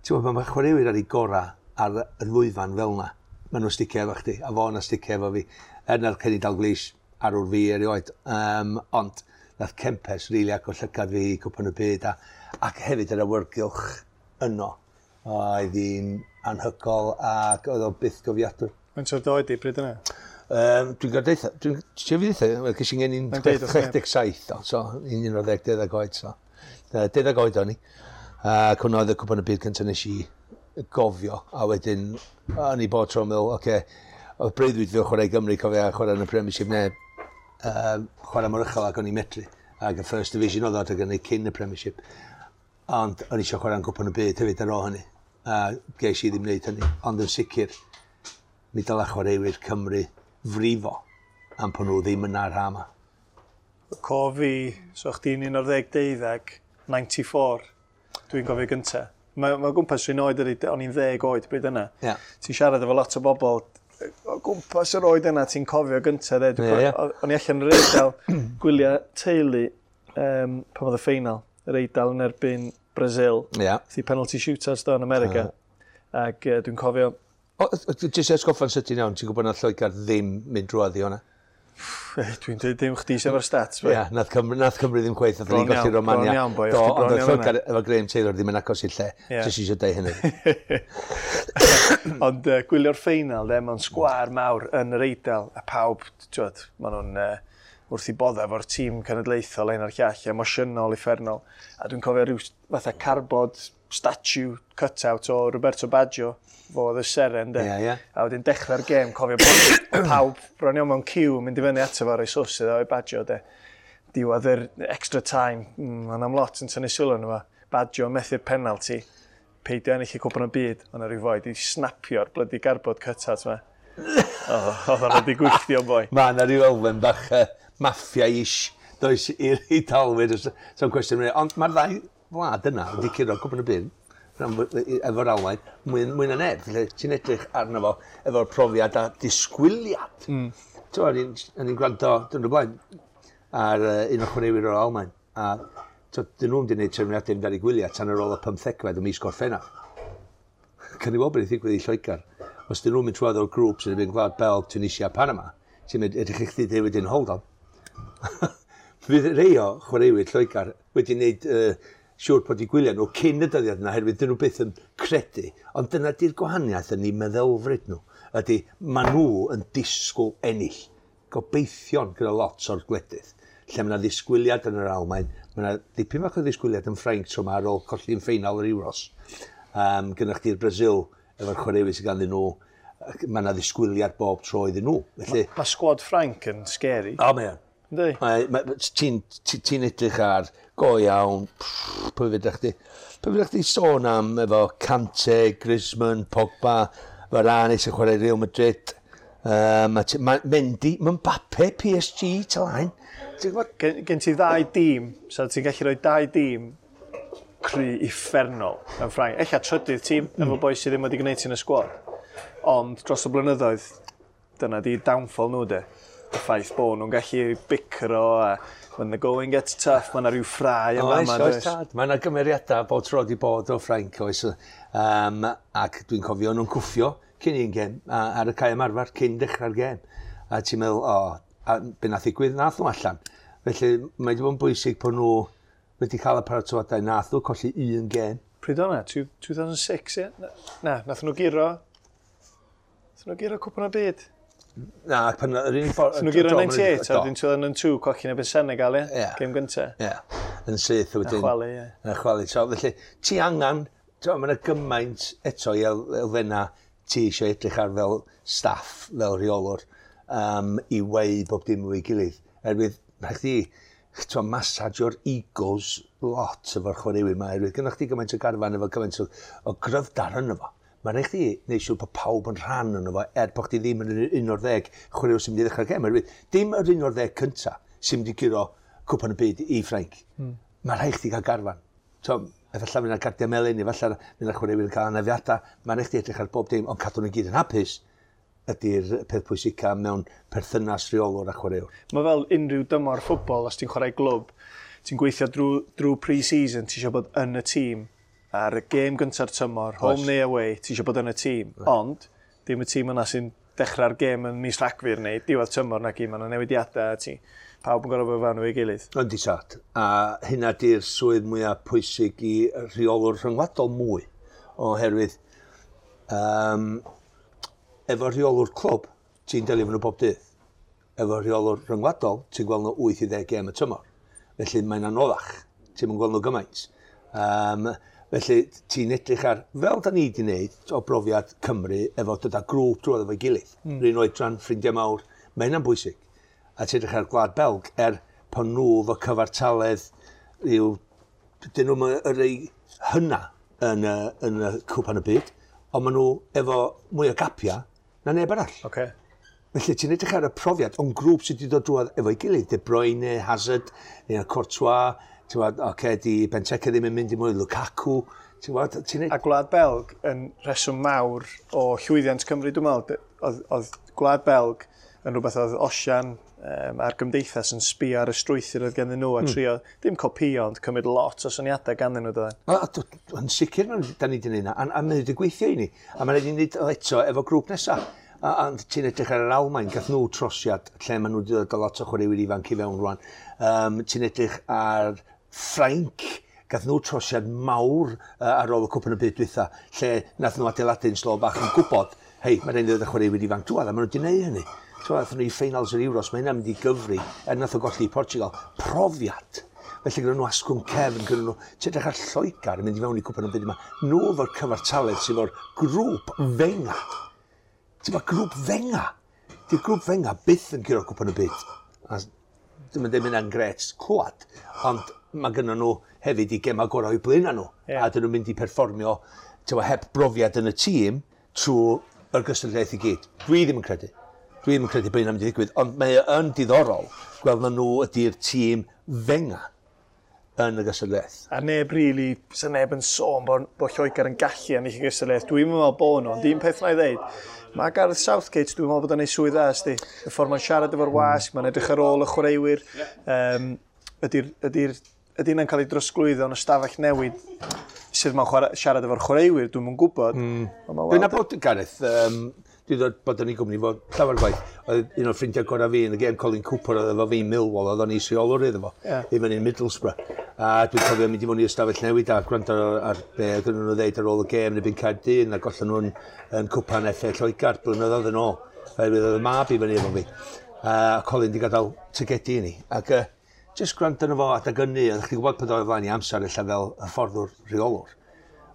ti'n gwybod, mae chwaraewyr ar ei gorau ar y lwyfan fel yna. Maen nhw'n sticio efo chdi, a fo yna sticio efo fi. Er na'r Kenny Dalglish arwr fi erioed. Ond nath Kempes rili agor llygad fi i Cwpan y Byd ac hefyd yr awyrgylch yno. Oedd hi'n anhygoel ac oedd o byth gofiadwy. Faint o'r doed i bryd yna? Dwi'n gwybod eitha, dwi'n fi ddeitha, wel, ges i'n geni'n Mae'n deud wrth neb. 67, so 11 oed, so. 12 oed o'n i. Ac hwnna oedd y Cwpan y Byd cyntaf nes i gofio, a wedyn o'n i bod tro'n meddwl, oce, oedd breuddwyd fi o chwarae i Gymru, cofio, a chwarae yn y Premiership neu chwarae mor uchel ac o'n i'n medru. Ac y First Division oedd o adeg hynny cyn y Premiership. Ond o'n i eisiau chwarae yn Cwpan y Byd hefyd ar ôl hynny. A ges i ddim wneud hynny. Ond yn sicr, mi dylai chwaraewyr Cymru frifo am pan nhw ddim yna ar ha yma. Cof fi, so chdi'n 11, 94, dwi'n gofio gynta. Mae o gwmpas rhywun oed ydi, o'n i'n 10 oed bryd yna. Ie. Ti'n siarad efo lot o bobl, o gwmpas yr oed yna ti'n cofio gynta, de. Ie, ie. O'n i allan yn yr Eidal gwyliau teulu pan oedd y ffeinal, yr Eidal yn erbyn Brazil. Ie. Thi penalty shootouts do yn America. Ac dwi'n cofio Jyst atgoffa'n sydyn iawn, ti'n gwybod na Lloegr ddim mynd drwodd i hwnna? Dwi'n dweud dim chdi sef o'r stats. Ie, yeah, nath Cymru, nath Cymru ddim chweith, nath ni'n golli Romania. Bron iawn, boi, Do, ond oedd Lloegr efo Graham Taylor ddim yn agos i'r lle. Yeah. Jyst eisiau deud hynny. Ond gwylio'r ffeinal, de, mewn sgwâr mawr yn yr Eidal, a pawb, ti'n maen nhw'n wrth i bodda efo'r tîm cenedlaethol ein a'r llall, emosiynol, uffernol. A dwi'n cofio rhyw fatha cardboard statue cut-out o Roberto Baggio, fo oedd y seren, de. Yeah, yeah. A wedyn dechrau'r gêm, cofio bod pawb bron iawn mewn ciw mynd i fyny ato fo roi sws iddo o'i Baggio, de. Diwedd yr extra time, mae'n am lot yn tynnu sylw arno fo. Baggio methu'r penalty, peidio ennill y cwpan y byd, ond rhyw foi di snapio'r blydi cardboard cut-out ma. Oedd o'n wedi gwylltio, boi. Mae yna rhyw elfen bach maffia-ish, does, i'r Eidalwyr, so'n cwestiwn. Ond mae'r ddau wlad yna wedi curo cwpan y byd efo'r Almaen, mwy, mwy na neb. Felly ti'n edrych arno fo efo'r profiad a disgwyliad. Ti'n o'n i'n gwrando, dyn nhw blaen, ar un o chwaraewyr o'r Almaen. A dyn nhw'n wedi gwneud trefniadau mynd ar ei gwyliau tan ar ôl y 15fed o mis Gorffennaf. Can i weld beth ddigwydd i Lloegr. Os dyn nhw'n mynd trwodd o'r grŵp sy'n mynd Gwlad Belg, Tunisia, Panama, ti'n mynd, edrych i chdi dweud wedyn, hold on. Fydd rei o chwaraewyr Lloegr wedi gwneud siŵr bod eu gwyliau nhw cyn y dyddiad yna, oherwydd dyn nhw byth yn credu. Ond dyna di'r gwahaniaeth yn eu meddylfryd nhw. Ydy, maen nhw yn disgwyl ennill. Gobeithio'n gyda lot o'r gwledydd. Lle mae yna ddisgwyliad yn yr Almaen, mae yna dipyn bach o ddisgwyliad yn Ffrainc tro yma ar ôl colli'n ffeinal yr Euros. Gynnwch chi'r Brazil efo'r chwaraewyr sydd ganddyn nhw, mae yna ddisgwyliad bob tro iddyn nhw. Felly, mae sgwad Ffrainc yn scary. O, mae o'n. Ti'n ti edrych ar go iawn, pwy fydych chdi? Pwy fydych chdi sôn am efo Kante, Griezmann, Pogba, Varane sy'n chwarae Real Madrid, Mendy, Mbappe, PSG, Talain. Gen ti ddau dîm, so ti'n gallu rhoi dau dîm cry uffernol yn Ffrainc. Ella trydydd tîm efo boi sydd ddim wedi gwneud ti'n y sgwad. Ond dros y blynyddoedd, dyna di downfall nhw de. Y ffaith bod nhw'n gallu bicro a when the going gets tough, mae yna rhyw ffrau yma. Oes, oes tad. Mae yna gymeriadau bod tro di bod o Ffrainc, oes. Ac dwi'n cofio nhw'n cwffio cyn un gêm, ar y cae ymarfer, cyn dechrau'r gêm. A ti'n meddwl, o, a be nath ddigwydd, nath nhw allan. Felly, mae wedi bod yn bwysig bod nhw wedi cael y paratoadau, nath nhw colli un gêm. Pryd o'na? 2006, ie? Na, nath nhw guro. Nath nhw guro cwpan y byd. Na, pan yr unig ffordd... Nath nhw guro 98, a wedyn 2002, colli yn erbyn Senegal, ie? Yeah. Gêm gynta. Ie, yeah. Yn syth wedyn. A chwalu, ie. A chwalu. So, felly, ti angen, mae yna gymaint eto i elfenna ti eisiau edrych ar fel staff, fel rheolwr, i weu bob dim o'i gilydd. Erwydd, rhaid chdi, ti'n massage-o'r egos lot efo'r chwaraewyr yma, erwydd gynnwch chdi gymaint o garfan efo gymaint o gryfdar yno fo. Mae'n rhaid chdi wneud siŵr bod pawb yn rhan yno fo, er bod chdi ddim yn yr 11 chwaraewr sy'n mynd i ddechrau'r gêm. Erwydd, dim yr 11 cynta sy'n mynd i guro cwpan y byd i Ffrainc. Mae'n rhaid chdi gael garfan. So, efallai fydd yna gardiau melyn, efallai fydd yna chwaraewyr yn cael anafiadau. Mae'n rhaid chdi edrych ar bob dim, ond cadw nhw gyd yn hapus ydy'r peth pwysica mewn perthynas rheolwr a chwaraewr. Mae fel unrhyw dymor ffwbol, os ti'n chwarae glwb, ti'n gweithio drwy pre-season, ti eisiau bod yn y tîm. Ar y gêm gynta'r tymor, home neu away, ti eisiau bod yn y tîm. Ond, dim y tîm yna sy'n dechrau'r gêm yn mis Rhagfyr neu diwedd tymor na gyd, mae yna newidiadau a ti. Pawb yn gorfod bod fewn efo'i gilydd. Yndi tad. A hynna di'r swydd mwyaf pwysig i rheolwr rhyngwladol mwy, oherwydd efo rheolwr clwb, ti'n delio efo nhw bob dydd. Efo rheolwr rhyngwladol, ti'n gweld nhw 8 i 10 gêm y tymor. Felly mae'n anoddach. Ti'n gweld nhw gymaint. Felly ti'n edrych ar, fel da ni wedi wneud o brofiad Cymru, efo dod â grŵp drwodd efo'i gilydd. R'un oedran, ffrindiau mawr, mae hynna'n bwysig. A ti'n edrych ar Gwlad Belg, er pan nhw efo cyfartaledd, yw, dyn nhw'n y rei hynna yn y cwpan y byd, ond maen nhw efo mwy o gapia na neb arall. Okay. Felly ti'n edrych ar y profiad, ond grŵp sydd wedi dod drwodd efo'i gilydd, De Bruyne, Hazard, neu Courtois, ti'n gwybod, oce, di Benteke ddim yn mynd i mwy, Lukaku, ti'n gwybod, ti'n A Gwlad Belg yn rheswm mawr o llwyddiant Cymru, dwi'n meddwl, oedd Gwlad Belg yn rhywbeth oedd Osian, a'r gymdeithas yn sbio ar y strwythur oedd ganddyn nhw a trio, ddim copio, ond cymryd lot o syniadau ganddyn nhw, doedden. Yn sicr, da ni wedi gwneud yna, a mae wedi gweithio i ni. A mae'n rhaid i ni wneud o eto efo grŵp nesaf. A ti'n edrych ar yr Almaen, gath nhw trosiad lle maen nhw wedi dod â lot o chwaraewyr ifanc i fewn rwan. Ti'n edrych ar Ffrainc, gath nhw trosiad mawr ar ôl y Cwpan y Byd dwytha, lle nath nhw adeiladu'n slo bach yn gwybod, hei, mae'n rhaid i ddod â chwaraewyr ifanc drwadd, a maen nhw wedi gwneud hynny. So, nath nhw i ffeinals yr Euros, mae hynna'n mynd i gyfri, er nath o golli i Portugal. Profiad. Felly gyda nhw asgwrn cefn, gyda nhw, ti'n edrych ar Lloegr yn mynd i fewn i Cwpan y Byd yma, nhw efo'r cyfartaledd sydd efo'r grŵp fenga. Ti'n ma grŵp fenga. Di'r grŵp fenga byth yn curo Cwpan y Byd. A dwi'm yn dweud hynna'n gret clwad, ond mae gynnon nhw hefyd i gema gorau o'u blaenau nhw. A dyn nhw'n mynd i perfformio heb brofiad yn y tîm trwy yr gystadleuaeth i gyd. Dwi ddim yn credu. Dwi ddim yn credu bod hynna'n mynd i ddigwydd, ond mae o yn diddorol gweld na nhw ydy'r tîm fenga yn y gystadleuaeth. A neb really, sa neb yn sôn bod Lloegr yn gallu ennill y gystadleuaeth. Dwi'n meddwl bod nhw, ond un peth na i ddeud, mae Gareth Southgate, dwi'n meddwl bod o'n ei swydd dda, sti. Y ffordd mae'n siarad efo'r wasg, mae'n edrych ar ôl y chwaraewyr. Ydy hynna'n cael ei drosglwyddo yn y stafell newid sydd mae'n siarad efo'r chwaraewyr, dwi'm yn gwybod. Ond ma' Dwi'n weld- nabod Gareth, dwi ddod bod yn ei gwmni fo llawer gwaith. Oedd un o'r ffrindiau gorau fi yn y gêm, Colin Cooper, oedd efo fi Millwall, oedd o'n is-reolwr iddo fo, i fyny yn Middlesbrough. A dwi'n cofio mynd i mewn i ystafell newid a gwrando ar be oedd nhw'n ddeud ar ôl y gêm yn erbyn Caerdydd, a gollon nhw'n yn cwpan FA Lloegr blynyddoedd yn ôl. Oherwydd oedd y mab i fyny efo fi. A Colin di gadael ticedi i ni. Ac just gwrando arno fo adag ynny, oedd chdi'n gwybod pan oedd o flaen i amser ella fel hyfforddwr rheolwr.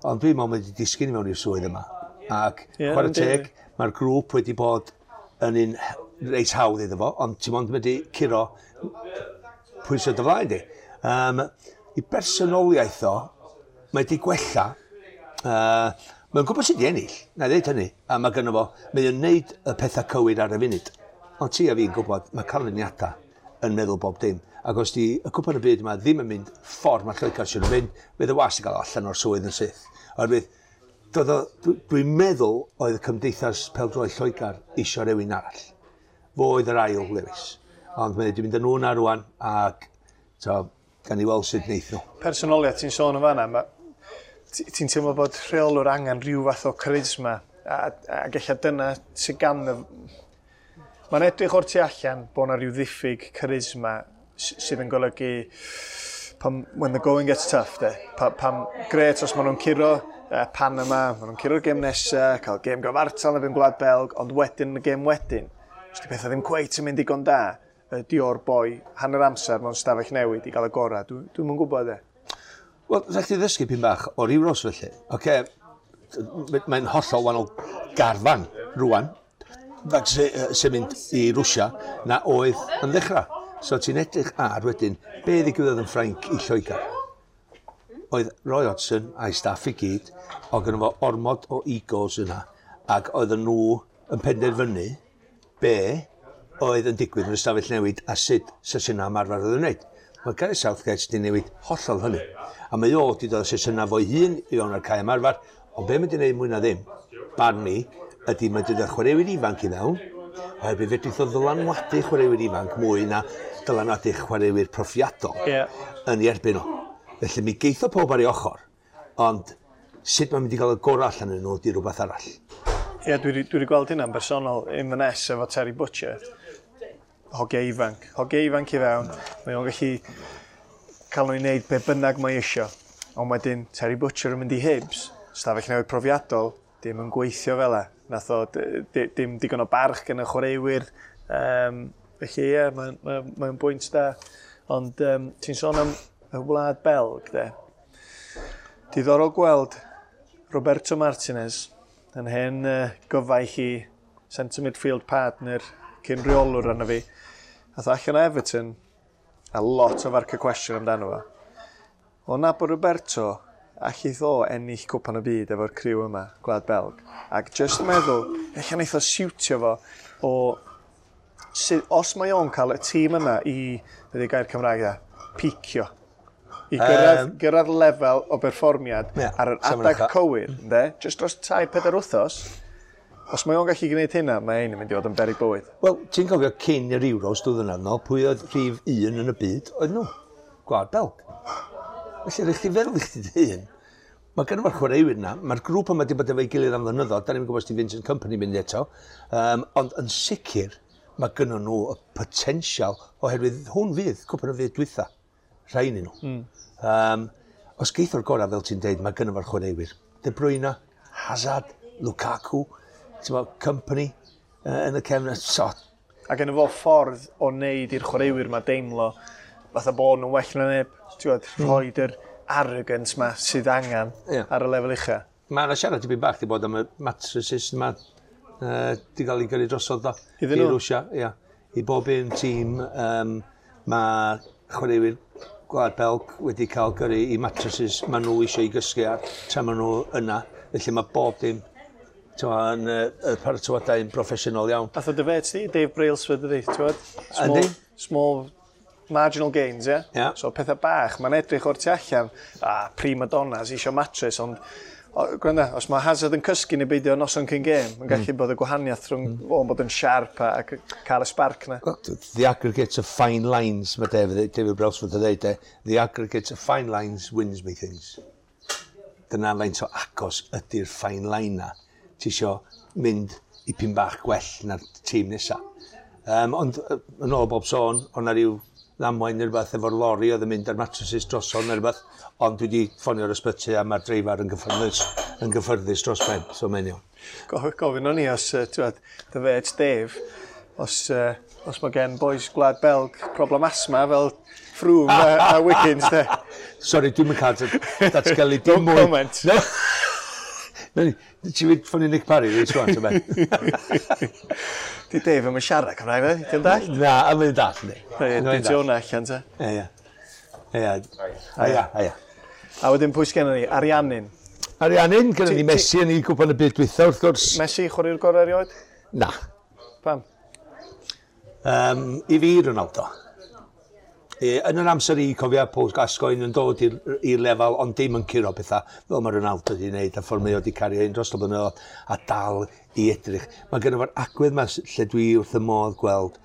Ond dwi'n meddwl mae wedi disgyn i mewn i'r swydd yma. Ac chwarae teg, mae'r grŵp wedi bod yn un reit hawdd iddo fo, ond ti'n mond mynd i curo pwysau dy flaen di. I bersonoliaeth o, mae wedi gwella. Mae'n gwybod sut i ennill, na i ddeud hynny, a mae gynno fo, mae o'n neud y pethau cywir ar y funud. Ond ti a fi'n gwybod, mae canlyniadau yn meddwl bob dim. Ac os di y Cwpan y Byd yma ddim yn mynd ffordd mae Lloegr sy'n mynd, fydd y wasg yn cael allan o'r swydd yn syth. Oherwydd, dwi'n meddwl oedd y Cymdeithas Pêl-droed Lloegr isio rhywun arall. Fo oedd yr ail Lewis. Ond mae wedi mynd â nhw na rwan, ac to, gan i weld sut wneith nhw. Personoliaeth ti'n sôn yn fanna, ti'n teimlo bod rheolwr angen rhyw fath o charisma, a ella dyna sydd gan y... Mae'n edrych o'r tu allan bod yna rhyw ddiffyg charisma sydd yn golygu pan, when the going gets tough, de. Pam, gret os maen nhw'n curo Panama, maen nhw'n curo'r gêm nesaf, cael gêm gyfartal yn erbyn Gwlad Belg, ond wedyn y gêm wedyn, os di pethau ddim cweit yn mynd digon da, ydy o'r boi hanner amser mewn stafell newid i gael y gorau. Dwi'm yn gwybod, de. Wel, rhaid chdi ddysgu pyn bach o'r Euros felly. Oce, mae'n hollol wahanol garfan rwan, sy'n mynd i Rwsia, na oedd yn ddechrau. So ti'n edrych ar wedyn, be ddigwyddodd yn Ffrainc i Lloegr? Oedd Roy Hodgson a'i staff i gyd, oedd gynno fo ormod o egos yna, ac oedden nhw yn penderfynu be oedd yn digwydd yn y stafell newid a sut sesiynau ymarfer oedd yn wneud. Mae Gareth Southgate wedi newid hollol hynny. A mae o wedi dod â sesiynau fo'i hun i fewn ar cae ymarfer, ond be mae wedi gwneud mwy na ddim, barn ni, ydy mae wedi dod â chwaraewyr ifanc i fewn, oherwydd fedrith o ddylanwadu chwaraewyr ifanc mwy na dylanwadu chwaraewyr profiadol yn ei erbyn o. Felly mi geitho pob ar ei ochr, ond sut mae'n mynd i gael y gorau allan yn nhw ydy rhywbeth arall. Ie, dwi wedi gweld hynna'n bersonol Inverness efo Terry Butcher. Hogia ifanc. Hogia ifanc i fewn. Mae o'n gallu cael nhw i wneud be bynnag mae isio. Ond wedyn Terry Butcher yn mynd i Hibs, stafell newid profiadol, dim yn gweithio fel e. Nath o dim digon o barch gan y chwaraewyr. Felly ie, mae'n bwynt da. Ond ti'n sôn am y Wlad Belg, de. Diddorol gweld Roberto Martinez yn hen gyfaill i centre midfield partner cyn reolwr arno fi. Ath o allan o Everton a lot o farc y cwestiwn amdano fo. O nabod Roberto, allith o ennill Cwpan y Byd efo'r criw yma, Gwlad Belg. Ac just yn meddwl, ella wneith o siwtio fo o... Os mae o'n cael y tîm yma i, be 'di gair Cymraeg da, picio. I gyrraedd lefel o berfformiad ar yr safon adeg ucha. cywir, ynde? Just dros 3-4 wythnos, Os mae o'n gallu gwneud hynna, mae ein yn mynd i fod yn beryg bywyd. Wel, ti'n cofio cyn yr Euros 2 flynedd nôl, pwy oedd rhif 1 yn y byd? Oedd nhw. Gwlad Belg. Felly, rhaid chdi feddwl i chdi dy hun. Mae gen fo'r chwaraewyr yna, mae'r grŵp yma wedi bod efo'i gilydd am flynyddoedd, da ni'n gwybod os di Vincent Kompany mynd eto, ond yn sicr, mae gynnon nhw y potensial oherwydd hwn fydd cwpan y byd dwytha, rhain i nhw. Os geith o'r gorau, fel ti'n deud, mae gynno fo'r chwaraewyr. De Bruyne, Hazard, Lukaku, ti'n bod, Kompany yn y cefn. So, A gen fo ffordd o wneud i'r chwaraewyr ma deimlo fatha bod nhw'n well na neb. Ti'n gwybod, rhoid yr arrogance ma sydd angen ar y lefel ucha. Mae yna siarad tipyn bach di bod am y mattresses yma di gael ei gyrru drosodd do. Iddyn nhw? I Rwsia, ia. I bob un tîm, mae chwaraewyr Gwlad Belg wedi cael gyrru i mattresses maen nhw eisiau i gysgu ar tra maen nhw yna. Felly mae bob dim t'mo, yn y paratoadau yn broffesiynol iawn. Fath o dy fet ti, Dave Brailsford ydi, ti'n gwybod? Small, Yndi. small marginal gains, ie? Ie. So pethau bach, mae'n edrych o'r tu allan, a prima donnas isio mattress, ond o, gwranda, os mae Hazard yn cysgu neu beidio noson cyn gêm, mae'n gallu bod y gwahaniaeth rhwng o'n bod yn sharp a cael y spark na. Well, the aggregate of fine lines, mae David Brailsford yn dweud, the aggregate of fine lines wins me things. Dyna faint o agos ydy'r fine line na. Ti isio mynd i pyn bach gwell na'r tîm nesa. Ond yn ôl bob sôn, o'na rhyw ddamwain neu rhywbeth efo'r lori oedd yn mynd ar mattresses drosodd neu rhywbeth, ond dwi wedi ffonio'r ysbyty a mae'r dreifar yn gyffyrddus dros ben, so mae'n iawn. Gofyn o'n i os, ti'n gwbod, dy fet Dave, os mae gen boys Gwlad Belg problem asthma fel Froome a Wiggins, de. Sorry, dwi'm yn cael datgelu dim No mwy. comment. No. No, ti'n mynd ffonio Nick Parry, reit rwan, ti'n be? Di Dave yn siarad Cymraeg, fe? Ti'n dall? Na, a mae'n dall, ni. Reit, di ti hwnna allan, te. Ie, ie. Ie, ie, ie. A wedyn pwy sgennon ni? Ariannin. Ariannin, gyda ni Messi yn ei gwpan y byd dwytha, wrth gwrs. Messi, chwaraewr gorau erioed? Na. Pam? I fi, Ronaldo. Yn yr amser i cofio Paul Gascoigne yn dod i'r lefel, ond dim yn curo pethau, fel mae Ronaldo wedi wneud, a ffordd mae o wedi cario un dros y blynyddoedd, a dal i edrych. Mae gynno fo'r agwedd yma lle dwi wrth y modd gweld,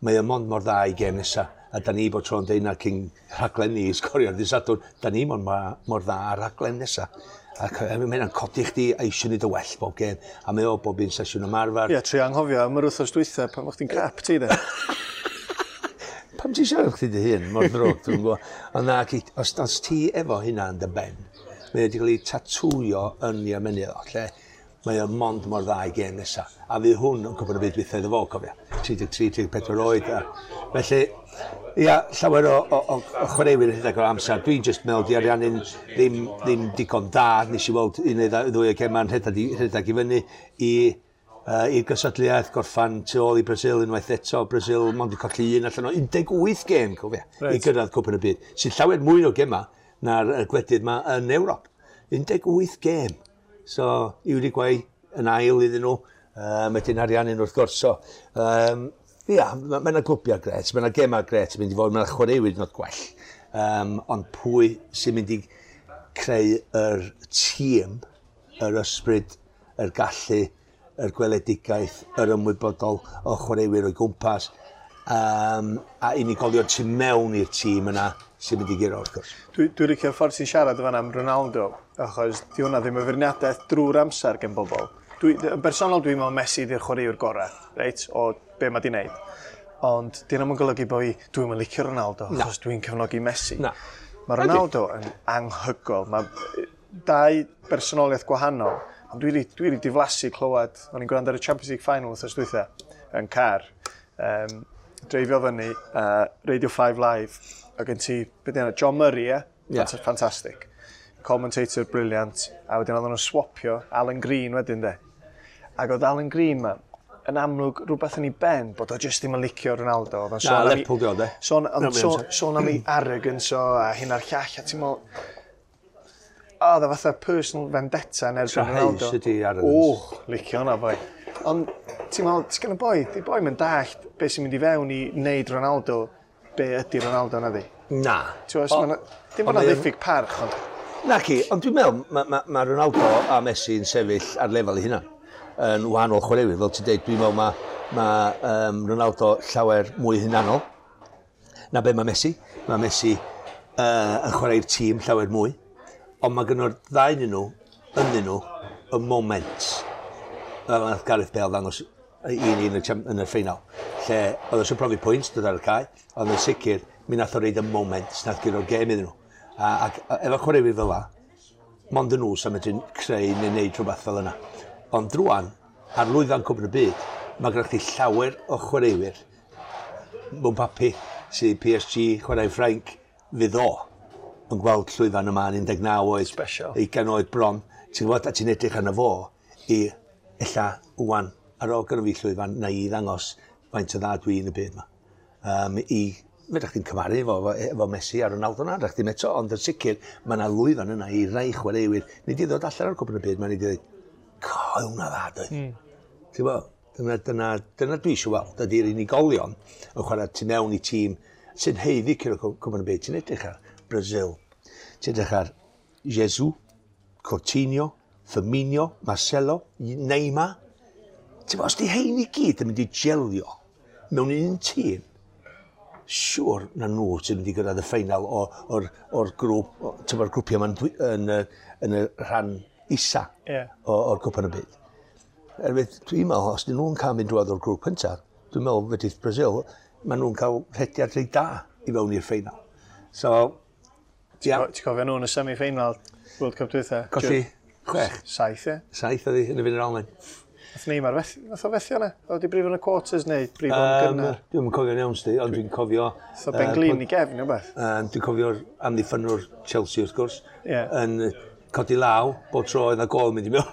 mae o mond mor dda i gêm nesa. A da ni bod tro'n deud na cyn rhaglen ni i sgorio ar ddydd Sadwrn, da ni mor, mor dda ar rhaglen nesa. Ac mae hynna'n codi chdi a eisiau neud y well bob gêm. A mae o bob un sesiwn ymarfer. Ie, trio anghofio am yr wythnos dwytha pan o'ch ti'n crap ti, de. Pam ti'n siarad chdi dy hun mor ddrwg, dwi'n gwybod. Ond na, os ti efo hynna yn dy ben, mae wedi cael ei tatwio yn ei ymennydd o, lle mae o mond mor dda i gêm nesa. A fydd hwn yn cwpan y byd dwytha iddo fo, cofia. 33, 34 oed. A, felly, ia, llawer o chwaraewyr yn rhedeg o'r amser. Dwi'n just meddwl di Ariannin ddim digon da. Nes i weld un neu ddwy o gema'n rhedeg i fyny i i'r gystadleuaeth, gorffan tu ôl i Brazil unwaith eto. Brazil mond i colli un allan o 18 gêm, cofia, i gyrraedd Cwpan y Byd. Sy'n llawer mwy o gema na'r gwledydd yma yn Ewrop. 18 gêm. So, Uruguay yn ail iddyn nhw, wedyn Ariannin wrth gwrs. So, ia, mae yna glwbiau gret, mae yna gemau gret yn mynd i fod, mae yna chwaraewyr not gwell. Ond pwy sy'n mynd i creu yr tîm, yr ysbryd, yr gallu, yr gweledigaeth, yr ymwybodol o chwaraewyr o'i gwmpas, a unigolion tu mewn i'r tîm yna sy'n mynd i guro, wrth gwrs. Dwi licio'r ffordd ti'n siarad fan am Ronaldo, achos di hwnna ddim yn feirniadaeth drwy'r amser gen bobl. Yn bersonol dwi'n meddwl Messi di'r chwaraewr gorau, reit, o be mae di wneud. Ond di hwnna'n golygu bo fi, dwi'n mynd licio Ronaldo, achos dwi'n cefnogi Messi. Na. Mae Ronaldo yn anhygoel. Mae dau bersonoliaeth gwahanol, ond dwi wedi diflasu clywed, o'n i'n gwrando ar y Champions League Final wythnos dwytha, yn car, dreifio fyny, Radio 5 Live, a gen ti, beth yna, John Murray, ie? Ie. Fantastic. Commentator brilliant. A wedyn oedden nhw'n swapio Alan Green wedyn, de. Ac oedd Alan Green ma, yn amlwg rhywbeth yn ei ben bod o jyst ddim yn licio Ronaldo. Oedd o'n Na, sôn am ei- Lerpwl di o, de. Sôn, Na, ond mae sôn, o'n sôn am ei arrogance o a hyn a'r llall, a ti'n meddwl, o, oedd o fatha personal vendetta yn erbyn Trahaus Ronaldo. ydi arrogance. O, licio hwnna, boi. Ond ti'n meddwl, ti'n gen y boi, di boi mynd dallt beth sy'n mynd i fewn i wneud Ronaldo, be ydy Ronaldo na di. Na. Ti'n meddwl, dim ond bod na mae o'n- ddiffyg parch, ond Na ci, ond dwi'n meddwl, mae ma, ma Ronaldo a Messi yn sefyll ar lefel eu hunan. yn wahanol chwaraewyr, fel ti'n deud, dwi'n meddwl mae ma, Ronaldo llawer mwy hunanol na be mae Messi. Mae Messi yn chwarae'r tîm llawer mwy, ond mae gynno'r ddau yn nhw, ynddyn nhw, y moment. Fel nath Gareth Bale ddangos i ni yn y, yn y ffeinal, lle oedd eisiau profi pwynt dod ar y cae, ond yn sicr, mi nath o reid y moment nath gyro'r gêm iddyn nhw. Ac efo chwaraewyr fel la, mond yn nhw sy'n medru creu neu wneud rhywbeth fel yna. Ond drwan, ar lwyfan Cwpan y Byd, mae gennych chi llawer o chwaraewyr mewn papu sydd PSG, chwarae Ffrainc, fydd o yn gweld llwyfan yma yn 19 oed. Special. 20 oed bron. Ti'n gwybod, a ti'n edrych arno fo i ella wwan, ar ôl gynno fi llwyfan, na i ddangos faint o dda dwi yn y byd yma. I, fedrwch chdi'n cymharu efo Messi a Ronaldo na, fedrwch chdi'm eto, ond yn sicr, mae yna lwyfan yna i rai chwaraewyr. Nid i ddod allan o'r Cwpan y Byd, mae'n i ddweud, co, hwnna dda, doedd. Ti'n gwybod, dyna dwi eisiau weld, ydy'r unigolion yn chwarae tu mewn i tîm sy'n haeddu curo Cwpan y Byd. Ti'n edrych ar Brazil, ti'n edrych ar Jesus, Coutinho, Firmino, Marcelo, Neymar. Ti'n gwybod, os di hein i gyd yn mynd i gelio mewn un tîm, siŵr na nhw sy'n mynd i gyrraedd y ffeinal o'r grŵp, ti'n gwybod, grwpiau yma'n yn y rhan isa o'r Cwpan y Byd. Erwydd, dwi'n meddwl, os dyn nhw'n cael mynd drwodd o'r grŵp cyntaf, dwi'n meddwl fedrith Brazil, maen nhw'n cael rhediad reit da i fewn i'r ffeinal. So, ia. Ti'n cofio nhw yn y semi-final World Cup dwytha? Colli 6. 7, ie. 7 oedd hi yn y fynd yr Almaen. Nath Neymar fethu, nath o fethu yna? Oedd wedi brifo yn y quarters neu brifo yn gynnar? Dwi'n cofio'n iawn, sti, ond dwi'n cofio... Nath o Ben Glyn i gefn, neu beth? Dwi'n cofio'r amddiffynwr Chelsea, wrth gwrs, yn codi law, bob tro oedd na gol mynd i mewn.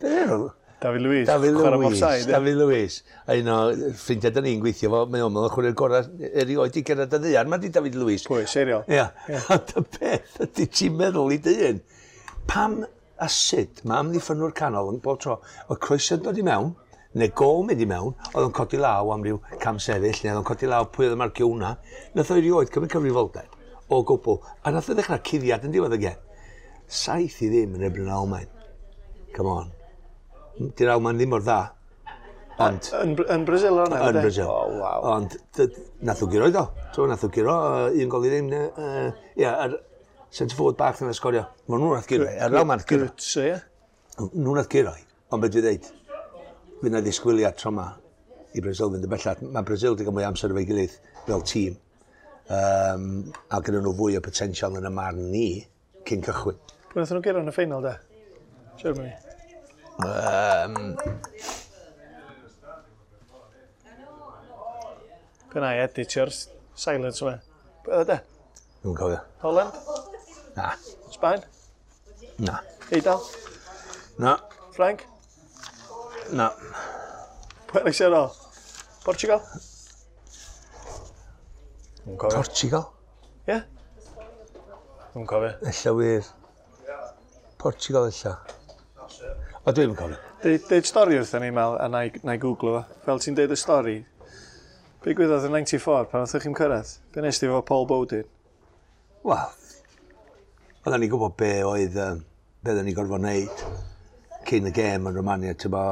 Be enw? David Luiz. David Luiz. David Luiz. A un o ffrindiau da ni'n gweithio fo, mae o'n meddwl chwarae'r gorau erioed i gyrraedd y ddaear. Mae di David Luiz. Pwy, seriol? Ia. Ond y peth ydy ti'n meddwl i dyn, pam a sut mae amddiffynwr canol yn bob tro, oedd croeso'n dod i mewn, neu gol mynd i mewn, oedd o'n codi law am ryw cam sefyll, neu oedd o'n codi law pwy oedd yn marcio hwnna. Nath o erioed cymryd cyfrifoldeb o gwbl, a nath o ddechrau cuddiad yn diwedd y gêm. 7-0 yn erbyn yr Almaen. Come on. Di'r Almaen ddim mor dda. Ond Yn Brazil o'na? Yn Brazil. Oh, wow. Ond nath o guro iddo. So, nath o guro, 1-0. Ia, yr centre forward bach yna sgorio. Ma nhw nath guro, yr Almaen nath guro. Götze, ie. Nhw nath guro. Ond beth dwi dweud, fydd na ddisgwyliad tro ma i Brazil fynd yn bellach. Mae Brazil wedi cael mwy o amser efo'i gilydd fel tîm. A gyda nhw fwy o potensial yn y marn ni cyn cychwyn. Pwy nath nhw guro yn y ffeinal, de? Germany. Pe na i editio'r silence yma. Pwy oedd e, de? Dwi'n cofio. Holland? Na. Sbaen? Na. Eidal? Na. Ffrainc? Na. Pwy arall sydd ar ôl? Portugal? Dwi'n cofio. Portugal? Ie? Dwi'n cofio. Ella wir. Portugal ella. O, dwi'n cofio. Deud stori wrthyn ni, Mel, a na i googlo fo. Fel ti'n deud y stori, be gwyddodd yn 94 pan oeddech chi'n cyrraedd? Be nes ti efo Paul Bowden? Wel, oedden ni'n gwybod be oedd, be oedden ni'n gorfod wneud cyn y gêm yn Romania, ti'n bo,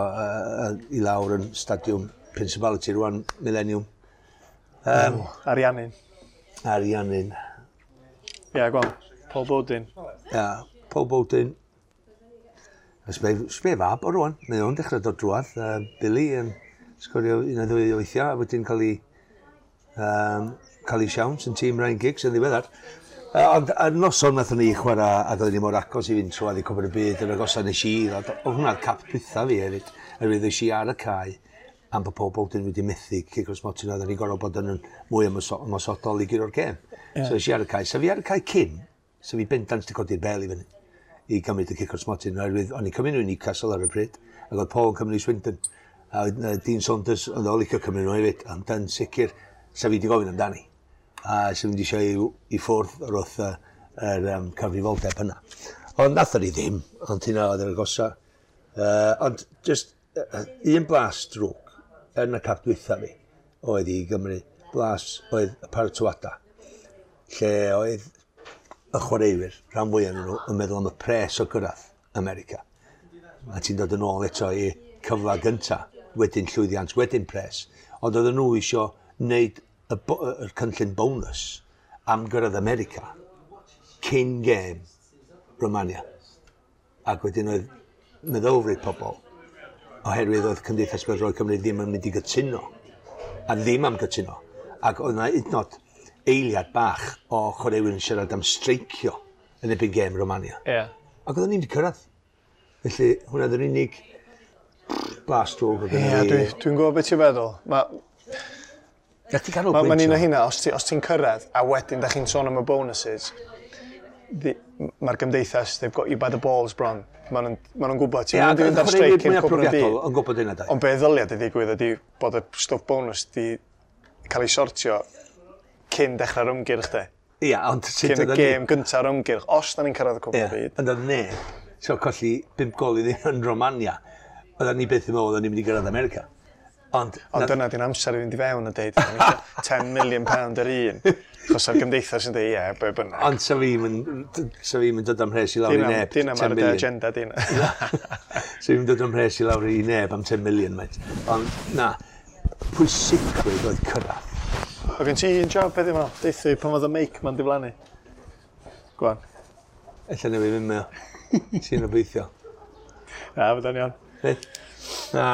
i lawr yn stadiwm Principality rwan, Millennium. Ariannin. Ariannin. Ie, yeah, gweld. Paul Bowden. Ia, yeah, Paul Bowden. Sbe fab o rwan, mae o'n dechrau dod drwadd. Billy yn sgorio un neu ddwy o weithiau, a wedyn cael ei siawns yn tîm Ryan Giggs yn ddiweddar. Ond y noson nathon ni chwarae, ac oedden ni mor agos i fynd trwadd i Cwpan y Byd, yn agosa nes i, oedd hwnna'r cap dwytha fi hefyd, oherwydd es i ar y cae, am bod Paul Bowden wedi methu cic o'r smotyn, oedden ni'n gorfod bod yn mwy ymosodol i guro'r gêm. Yeah. So es i ar y cae. So fi ar y cae cyn, so fi bendant wedi codi'r bel i fyny i gymryd y cic o'r smotyn, oherwydd o'n i'n cymryd nhw i Newcastle ar y pryd, ac oedd Paul yn cymryd i Swindon, a Dean Saunders oedd o'n licio cymryd nhw hefyd, ond yn sicr, sa fi wedi gofyn amdani. A sa fi wedi eisiau i ffwrdd o'r wrth yr cyfrifoldeb yna. Ond nathon ni ddim, ond hynna oedd yr agosa. Ond just un blas drwg yn y cap dwytha fi oedd i Gymru. Blas oedd y paratoada, lle oedd y chwaraewyr, rhan fwyaf nhw, yn meddwl am y pres o gyrraedd America. A ti'n dod yn ôl eto i cyfle gynta, wedyn llwyddiant, wedyn pres. Ond oedden nhw isio wneud y cynllun bonus am gyrraedd America cyn gêm Romania. Ac wedyn oedd meddylfryd pobl, oherwydd oedd Cymdeithas Bêl-droed Cymru ddim yn mynd i gytuno, a ddim am gytuno. Ac oedd yna hyd yn oed eiliad bach o chwaraewyr yn siarad am streicio yn erbyn gêm Romania. Ac oedden ni'n wedi cyrraedd. Felly, hwnna oedd yr unig blas drwg oedd Ie, gynna fi. dwi'n gwybod beth ti'n feddwl. Mae Na ti canolbwyntio. ma un o hynna, os ti'n cyrraedd, a wedyn da chi'n sôn am y bonuses, mae'r gymdeithas, they've got you by the balls bron. Maen nhw'n gwybod, ti'n Ie, mynd i fynd ar chwaraewyr streic cyn mwyaf cwpan y byd. profiadol yn gwybod hynna, da. Ond be ddylia di ddigwydd ydy bod y stwff bonus di cael ei sortio cyn dechrau'r ymgyrch de. Ia, ond sut Cyn y oedden ni- gêm gynta'r ymgyrch, os da ni'n cyrraedd y cwpan y Ie, byd. ond oedd neb, so colli 5 gol i ddim yn Romania, oedden ni byth yn meddwl oedden ni'n mynd i gyrraedd America. Ond, Ond dyna di'n amser i fynd i fewn a deud, "Da ni isio 10 million pound yr un." Achos o'r gymdeithas yn deud, ie, be bynnag. Ond sa fi'n mynd dod am mhres i lawr i neb. Dina 10 ar y million. agenda, dina. Sa fi'n dod am mhres i lawr i neb am 10 million, mate. Ond na, pwysigrwydd oedd cyrraedd. O gen ti un job heddiw 'ma? Deutha fi pan oedd y meic ma'n diflannu. Go on. Ella newid fynd meo. Ti'n obeithio. Na, fydda'n iawn. Reit. Na.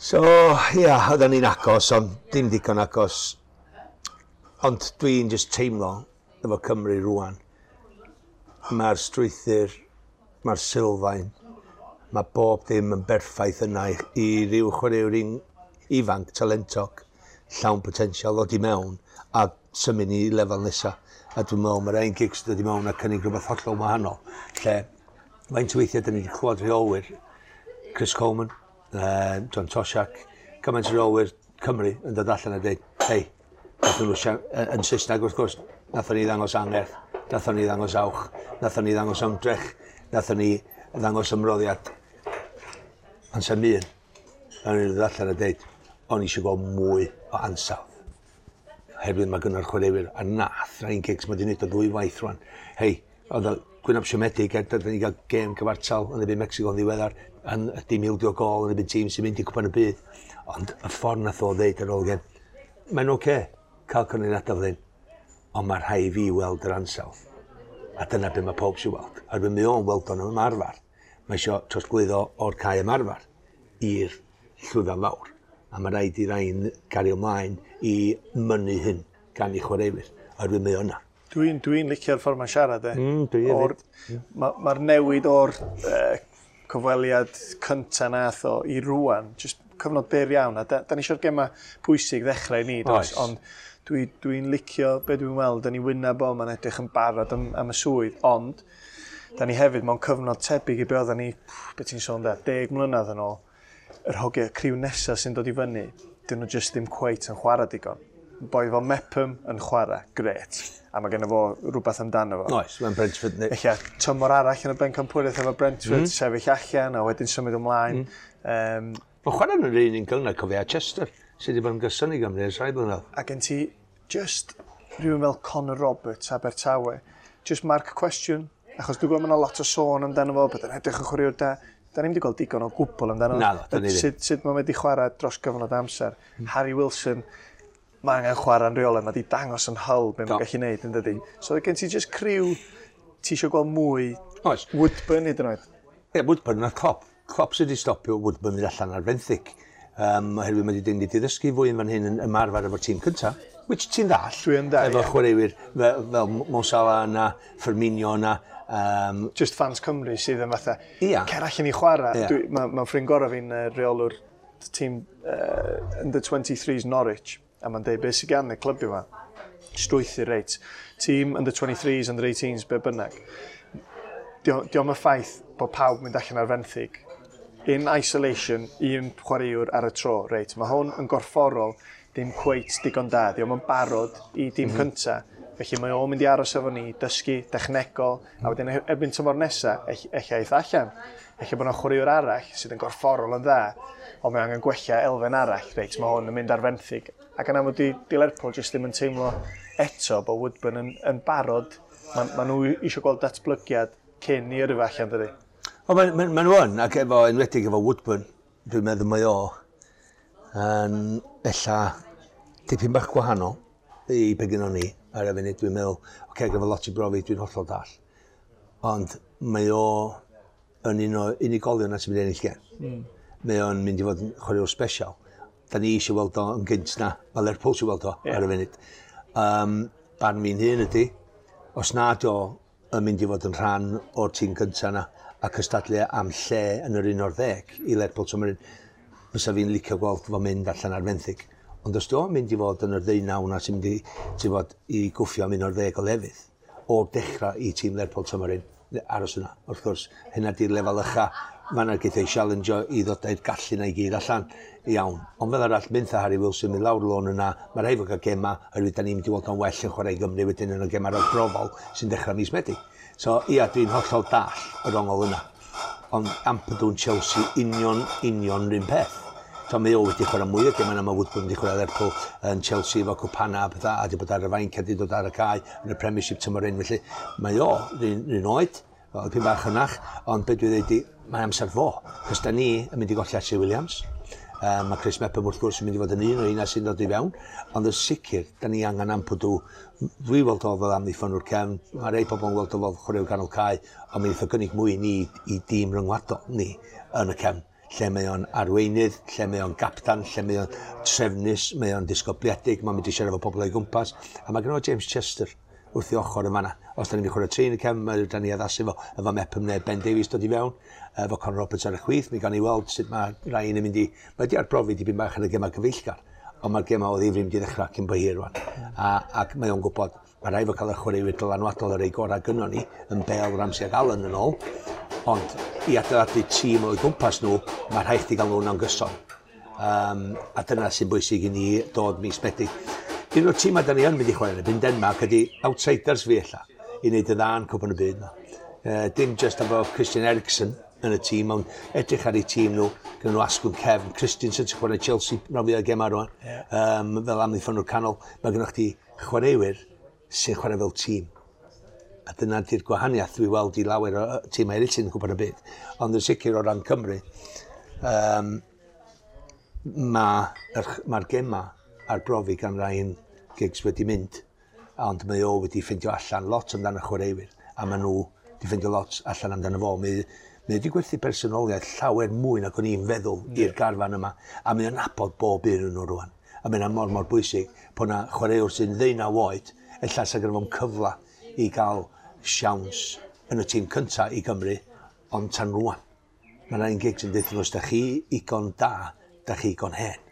So, ia, oedden ni'n agos, ond dim digon agos. Ond dwi'n just teimlo efo Cymru rwan. Mae'r strwythur, mae'r sylfaen, mae bob dim yn berffaith yna i ryw chwaraewr ifanc, talentog, llawn potensial ddod i mewn a symud ni i lefel nesa. A dwi'n meddwl mae'r Ryan Giggs dod i mewn a cynnig rhywbeth hollol wahanol. Lle, faint o weithiau dyn ni wedi clywed rheolwyr, Chris Coleman, John Toshak, cymaint o reolwyr Cymru yn dod allan a dweud, hei, nathon nhw yn Saesneg wrth gwrs, nathon ni ddangos angerdd, nathon ni ddangos awch, nathon ni ddangos ymdrech, nathon ni ddangos ymroddiad. Ond sa'm un, nathon ni ddod allan a dweud, o'n i eisiau gweld mwy o ansawdd. Oherwydd mae gynno'r chwaraewyr, a nath Ryan Giggs, mae wedi gwneud o ddwy waith rwan. Hei, oedd o gwynab siomedig er dydyn ni gael gêm cyfartal yn erbyn Mexico yn ddiweddar, yn dim ildio gol yn erbyn tîm sy'n mynd i cwpan y byd. Ond y ffordd nath o ddeud ar ôl gêm, mae'n oce cael canlyniadau fel hyn, ond mae rhaid i fi weld yr ansawdd. A dyna be mae pob sy'n weld. Oherwydd mae o'n weld o'n ymarfer. Mae eisiau trosglwyddo o'r cae ymarfer i'r llwyfan fawr. A mae rhaid i Ryan gario ymlaen i mynnu hyn gan ei chwaraewyr. Oherwydd mae o yna. Dwi'n licio'r ffordd mae'n siarad, e. Dwi hefyd. Mae'r newid o'r cyfweliad cynta nath o i rwan, just cyfnod byr iawn, a da ni eisiau'r gema pwysig ddechrau i ni, does? Oes. Ond dwi'n licio be dwi'n weld yn ei wyneb o, mae'n edrych yn barod am y swydd, ond da ni hefyd mewn cyfnod tebyg i be oedden ni, be ti'n sôn da, 10 mlynedd yn ôl, yr hogiau criw nesaf sy'n dod i fyny, dyn nhw just ddim cweit yn chwarae digon. Boi fel Mepham yn chwarae, gret. A mae genno fo rhywbeth amdano fo. Oes, mae'n Brentford. Ella tymor arall yn y bencampwriaeth efo Brentford, sefyll allan a wedyn symud ymlaen. Mae'n chwarae yn yr un un gynnar, cofio, a Chester, sydd wedi bod yn gyson i Gymru ers rhai blynedd. A gen ti just rhywun fel Conor Roberts, Abertawe, just mark cwestiwn, achos dwi'n gwybod mae yna lot o sôn amdano fo, bod yn edrych yn chwaraewr da. Da ni'n wedi gweld digon o gwbl amdano fo. Naddo, da ni ddim. Sut mae'n wedi chwarae dros gyfnod amser. Harry Wilson, mae angen chwarae'n rheolaidd, mae wedi dangos yn Hull be mae'n Do. gallu neud, yn dydi. So gen ti just criw, ti eisiau gweld mwy Oes. Woodburn hyd yn oed. Ie, Woodburn nath Klopp. Klopp sydd wedi stopio Woodburn mynd allan ar fenthyg. Oherwydd mae wedi wedi ddysgu fwy yn fan hyn yn ymarfer efo'r tîm cynta, which ti'n ddall. Dwi yn ddall, Efo ie. chwaraewyr fel Mo Salah yna, Firmino yna. Just fans Cymru sydd yn fatha, Ia. cer allan i chwarae. Ia. Mae ffrind gorau fi'n reolwr tîm under 23s Norwich, a mae'n deud beth sydd gan y clybio yma, strwythur reit. Tîm under 23s, under 18s, be bynnag. Dio'm y ffaith bod pawb mynd allan ar fenthyg. In isolation, un chwaraewr ar y tro, reit. Mae hwn yn gorfforol ddim cweit digon da. Dio'm yn barod i dîm cynta. Felly mae o'n mynd i aros efo ni, dysgu, dechnegol, a wedyn erbyn tymor nesa, ella eith allan. Ella bod yna chwaraewr arall sydd yn gorfforol yn dda, ond mae angen gwella elfen arall, reit, mae hwn yn mynd ar fenthyg. Ac yn amlwg di Lerpwl jyst ddim yn teimlo eto bod Woodburn yn barod. Ma nhw eisiau gweld datblygiad cyn i yrru fo allan, dydy. O, ma nhw yn, ac efo, enwedig efo Woodburn, dwi'n meddwl mae o yn ella dipyn bach gwahanol i be gynnon ni ar y funud. Dwi'n meddwl, oce, okay, gyda lot i brofi, dwi'n hollol dall. Ond mae o yn un o unigolion na sy'n mynd i ennill gêm. Mae o'n mynd i fod yn chwaraewr special. Da ni eisiau weld o yn gynt na, mae Lerpwl eisiau weld o ar y funud. Barn fi'n hun ydy, os nad o yn mynd i fod yn rhan o'r tîm gyntaf na a cystadlu am lle yn yr 11 i Lerpwl tymor hyn, fysa fi'n licio gweld fo mynd allan ar fenthyg. Ond os di o'n mynd i fod yn yr 19 na sy'n mynd i, ti'n bod, i gwffio am 11 o lefydd, o'r dechrau i tîm Lerpwl tymor hyn, aros yna. Wrth gwrs, hynna di'r lefel ucha, mae yna geith ei challenge i ddod â'r gallu na i gyd allan. Iawn. Ond fel arall, mynd Harry Wilson, mynd lawr lôn yna, mae rhaid fod cael gema, oherwydd da ni'n mynd i weld o'n well yn chwarae i Gymru wedyn yn y gema ragbrofol sy'n dechrau mis Medi. So, ia, dwi'n hollol dall yr ongol yna. Ond Ampadu yn Chelsea, union, union rhywun peth. So, mae o wedi chwarae mwy o gemau na mae Woodburn wedi chwarae Lerpwl yn Chelsea efo cwpana a pethau, a wedi bod ar y fainc a wedi dod ar y cae yn y Premiership tymor hyn. Felly, mae o rhywun oed, fel dipyn bach hynach, ond be dwi'n dweud i, mae amser fo. Cos da ni yn mynd i golli Ashley Williams. Mae Chris Mepham wrth gwrs yn mynd i fod yn un o un sy'n dod i fewn, ond yn sicr, da ni angen Ampadu. Dwi weld o fel amddiffynwr cefn, mae rei pobl yn weld o fel chwaraewr ganol cae, ond mi wnaeth o gynnig mwy i ni i dîm ryngwladol ni yn y cefn, lle mae o'n arweinydd, lle mae o'n gaptan, lle mae o'n trefnus, mae o'n disgybliedig, mae'n mynd i siarad efo pobl o'i gwmpas, a mae gen o James Chester wrth i ochr yn fanna. Os da ni'n mynd i chwarae tri yn y cefn, mae da ni addasu fo, efo Mepham neu Ben Davies dod i fewn, efo Conor Roberts ar y chwith, mi gawn ni weld sut mae Ryan yn mynd i... Mae di arbrofi dipyn bach yn y gemau cyfeillgar, ond mae'r gemau o ddifri mynd i ddechrau cyn bo hir rwan. Ac mae o'n gwybod, mae rhaid fo cael y chwaraewyr dylanwadol ar ei gorau gynnon ni, yn Bale, Ramsey ac Allen yn ôl, ond i adeiladu tîm o'i gwmpas nhw, mae rhaid chdi gael nhw'n gyson. A dyna sy'n bwysig i ni dod mis Medi. Un o'r tîmau da ni yn mynd i chwarae yn erbyn Denmark ydy outsiders fi ella, i wneud y dda yn Cwpan y Byd yma. Dim just efo Christian Eriksen yn y tîm, ond edrych ar eu tîm nhw, gyda nhw asgwrn cefn, Christensen sy'n chwarae Chelsea rhan fwyaf o gemau rwan, fel amddiffynwr canol, mae gennych chdi chwaraewyr sy'n chwarae fel tîm. A dyna di'r gwahaniaeth dwi weld i lawer o tîmau eraill sy'n Cwpan y Byd. Ond yn sicr o ran Cymru, mae'r gema arbrofi gan Ryan Giggs wedi mynd, ond mae o wedi ffeindio allan lot amdano chwaraewyr, a maen nhw wedi ffeindio lot allan amdano fo. Mae wedi gwerthu personoliaeth llawer mwy nag o'n i'n feddwl i'r garfan yma, a mae o'n nabod bob un yn nhw rwan. A mae hynna mor mor bwysig bod na chwaraewr sy'n 19 oed, ella sa gynno fo'm cyfle i gael siawns yn y tîm cyntaf i Gymru, ond tan rwan. Mae Ryan Giggs yn deutha nhw, os da chi igon da, da chi igon hen.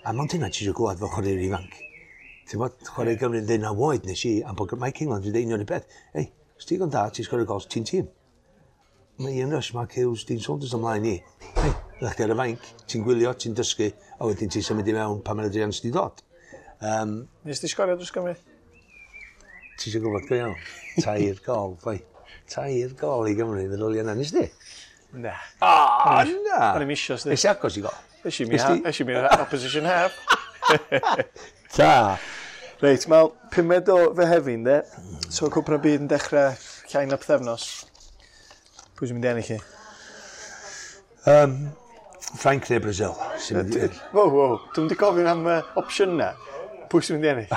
A mond hynna ti eisiau glywed fel chwaraewr ifanc. Ti'n bod, chwarae Gymru yn 19 oed nes i, am bod Mike England wedi deud union un peth. Ei, os ti igon da, ti'n sgorio gols, ti'n tîm. Mae Ian Rush, Mark Hughes, Dean Saunders ymlaen i. Hei, ydych chi ar y fainc, ti'n gwylio, ti'n dysgu, a wedyn ti'n symud i mewn pan mae'r Adrian di dod. Nes ti sgorio dros Gymru? Ti eisiau gwybod go iawn? 3 gol, boi. 3 gol i Gymru, feddwl i yna, nes di? Na. O, na! O'n i'm isio, sdi. Nes i agos i gol. Es i mi opposition half. Ta! Reit, wel, 5 o Fehefin, de. So, Cwpan y Byd yn dechrau llai na pythefnos. Pwy sy'n mynd i ennill i? Ffrainc neu Brazil. Sy'n mynd i... Wow, wow, dwi'n mynd i gofyn am opsiwn na. Pwy sy'n mynd i ennill?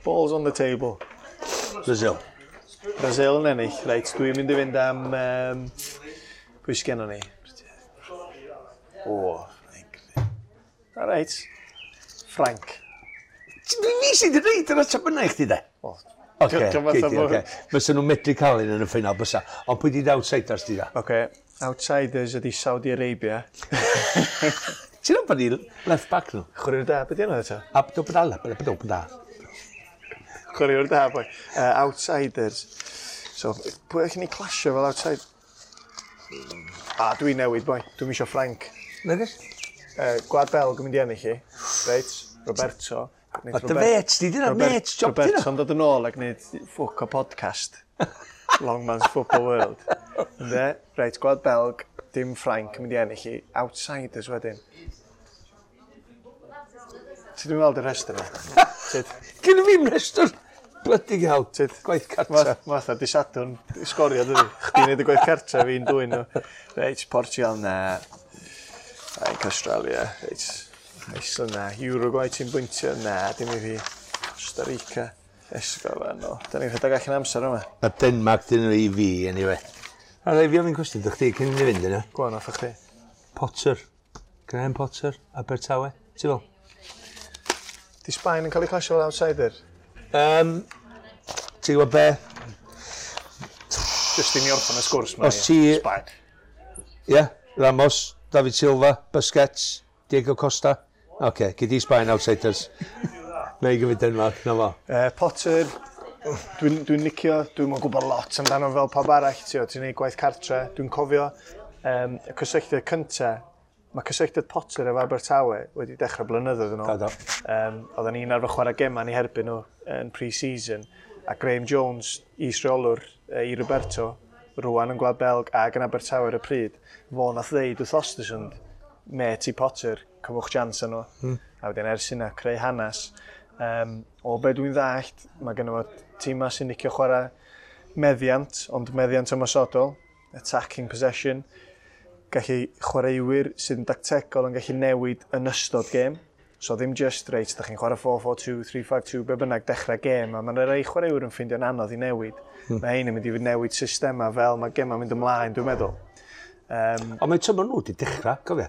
Balls on the table. Brazil. Brazil yn ennill. Reit, dwi'n mynd i fynd am... Pwy sy'n gennon ni? O, Ffrainc. All right. Ffrainc. Fi sydd wedi dweud yr ateb yna i chdi de? O, Oce, Diolch yn oce. Fysa nhw'n medru cael un yn y ffeinal bysa. Ond pwy di outsiders di da? Oce, outsiders ydi Saudi Arabia. Ti'n meddwl bod ni left back nhw? Chwaraewr da, beth di enw eto? Abdul Badal. Chwaraewr da, boi. Outsiders. So, pwy allwn ni clasio fel outside? A, dwi'n newid, boi. Dwi'n isio Ffrainc. Nagos? Gwlad Belg yn mynd i ennill i. Reit, Roberto. O, dy fêts di, dyna mêts job dyna. Roberto'n dod yn ôl ac gwneud ffwc o podcast. Long Man's Football World. Ynde? Reit, Gwlad Belg, dim Ffrainc yn mynd i ennill i. Outsiders wedyn. Ti ddim weld y rhestr yma? Sut? Gynna fi'm rhestr. Bloody hell, gwaith cartra. Fatha, di Sadwrn, sgorio, dydi. Chdi'n neud y gwaith cartra, fi'n dwyn nhw. Reit, Portugal, na. Reit, Australia, reit. Iceland, na. Uruguay, ti'n bwyntio, na, dim i fi. Costa Rica, Esgo, no. Da ni'n rhedeg allan amser yma. A Denmark dyn nhw i fi, anyway. A rai fi ofyn cwestiwn, dych chi cyn i ni fynd yna? Go on, off chdi. Potter. Graham Potter, Abertawe. Ti fel? Di Sbaen yn cael ei clasio fel outsider? Ti'n gwybod be? Just i ni orffen y sgwrs ma. Os ti- Sbaen. Ie, yeah, Ramos, David Silva, Busquets, Diego Costa. Oce, okay, gyd i Sbaen outsiders. Na i gymryd Denmark, na fo. Potter, dwi'n dwi licio, dwi'n yn gwybod lot amdano fel pawb arall, ti'n neud gwaith cartre. Dwi'n cofio y cysylltiad cynta, mae cysylltiad Potter efo Abertawe wedi dechrau blynyddoedd yn ôl. Do, do. Oedden ni'n arfer chwarae gemau ni herbyn nhw yn pre-season, a Graham Jones, is-reolwr i Roberto, rwan yn Gwlad Belg ac yn Abertawe ar y pryd, fo nath ddeud wrth Ostersund, met i Potter, cymwch chance nhw. A wedyn ers hynna, creu hanes. O be dwi'n ddallt, mae gen fo tîma sy'n licio chwarae meddiant, ond meddiant ymosodol, attacking possession, gallu chwaraewyr sydd yn dactegol yn gallu newid yn ystod gêm. So ddim just, reit, da chi'n chwarae 4-4-2, 3-5-2, be bynnag, dechrau gêm, a mae'n rhai chwaraewyr yn ffeindio'n anodd i newid. Mae ein yn mynd i newid systema fel mae gema'n mynd ymlaen, dwi'n meddwl. Ond mae tymor nhw wedi dechrau, cofio?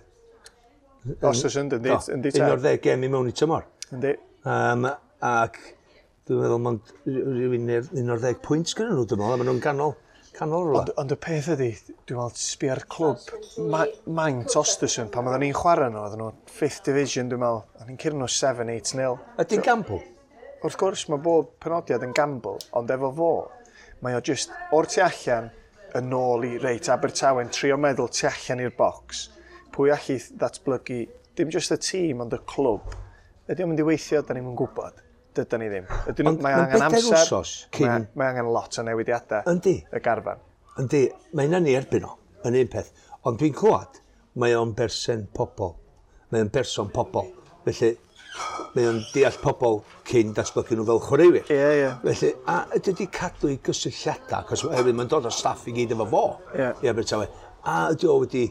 Ostersund, yndi, yndi ta. 11 gêm i mewn i tymor. Yndi. Ac dwi'n meddwl mond rhyw 11 pwynt gyda nhw, dwi'n meddwl, a maen nhw'n ganol rhywle. Ond y peth ydy, dwi'n meddwl, sbio ar clwb, maint Ostersund, pan oedden ni'n chwarae nhw, oedden nhw 5th division, dwi'n meddwl, o'n i'n curo nhw 7-8-0. Ydy'n gamble? Wrth gwrs, mae bob penodiad yn gamble, ond efo fo, mae o just o'r tu allan yn ôl i reit Abertawe'n trio meddwl tu allan i'r bocs. Pwy allu ddatblygu, dim just y tîm, ond y clwb. Ydy o'n mynd i weithio, da ni'm yn gwybod. Dydan ni ddim. Ydyn nhw, Ond mae ma'n angen bedair amser. wsos cyn- Mae angen lot o newidiadau. Yndi. Y garfan. Yndi, mae hynna'n ei erbyn o, yn un peth. Ond dwi'n clywed, mae o'n berson pobol. Mae o'n berson pobol. Felly, mae o'n deall pobol cyn datblygu nhw fel chwaraewyr. Ie, ie. Felly, a ydy wedi cadw i gysylltiadau, achos oherwydd mae'n dod o staff i gyd efo fo. Ie. I Abertawe. A ydy o wedi,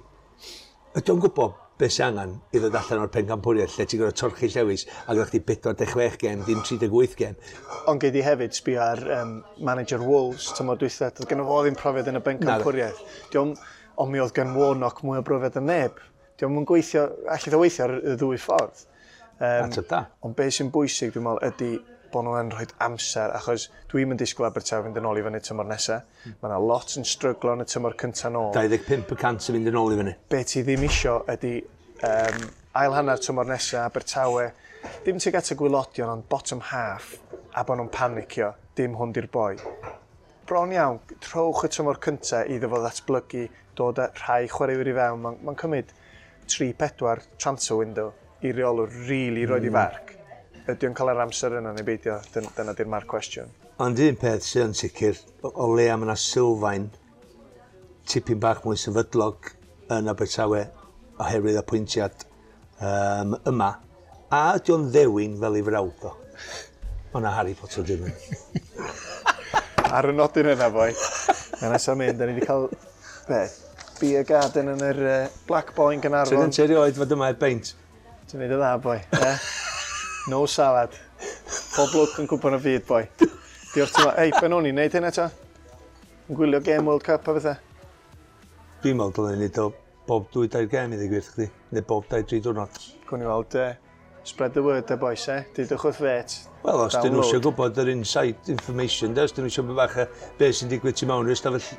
ydy o'n gwybod beth sy'n angen i ddod allan o'r pencampwriaeth lle ti'n gorfod torchi llewis a gyda chdi 46 gêm, dim 38 gêm. Ond gei di hefyd sbio ar manager Wolves tymor dwytha, doedd gynno fo ddim profiad yn y bencampwriaeth. Ond mi oedd gan Warnock mwy o brofiad yn neb. Dio'm yn gweithio, allith o weithio ar y ddwy ffordd. Ateb da. Ond beth sy'n bwysig, dwi'n meddwl, ydy bod nhw yn rhoi amser, achos dwi'n mynd disgwyl Abertawe fynd yn ôl i fyny tymor nesaf. Mae yna lot yn stryglo yn y tymor cyntaf nôl. 25% yn mynd yn ôl i fyny. Be ti ddim isio ydy ail hanner tymor nesaf, Abertawe, dim tuag at y gwylodion, ond bottom half, a bod nhw'n panicio, dim hwn di'r boi. Bron iawn, trowch y tymor cyntaf iddo fo ddatblygu, dod â rhai chwaraewyr i fewn. Mae'n cymryd 3-4 transfer window i reolwr really roed i farc. Ydy o'n cael yr amser yna neu beidio? Dyna di'r mark cwestiwn. Ond un peth sydd yn sicr, o leia mae yna sylfaen tipyn bach mwy sefydlog yn Abertawe oherwydd apwyntiad yma. A ydy o'n ddewin fel ei frawd o? O na Harry Potter ddim yn. Ar y nodyn yna, boi. Mae nesaf mynd, da ni wedi cael, be, beer garden yn yr Black Boy yn Ti'n Gaernarfon. ti erioed fod yma i beint? Ti'n neud y dda, boi. Eh? No salad. Pob lwc yn cwpan y byd, boi. Diolch ti'n Ei, ben o'n i'n neud hynna ta? Yn gwylio Game World Cup a bethau. Dwi'n meddwl dylen ni neud o bob 2-3 gêm i ddweud gwir chdi, neu bob 2-3 diwrnod. Gwn i weld, spread the word, de, boys, eh? Dudwch wrth fet. Wel, os dyn nhw eisiau Download. gwybod yr inside information, de, os dyn nhw eisiau bach o beth sy'n digwydd tu mewn i'r stafell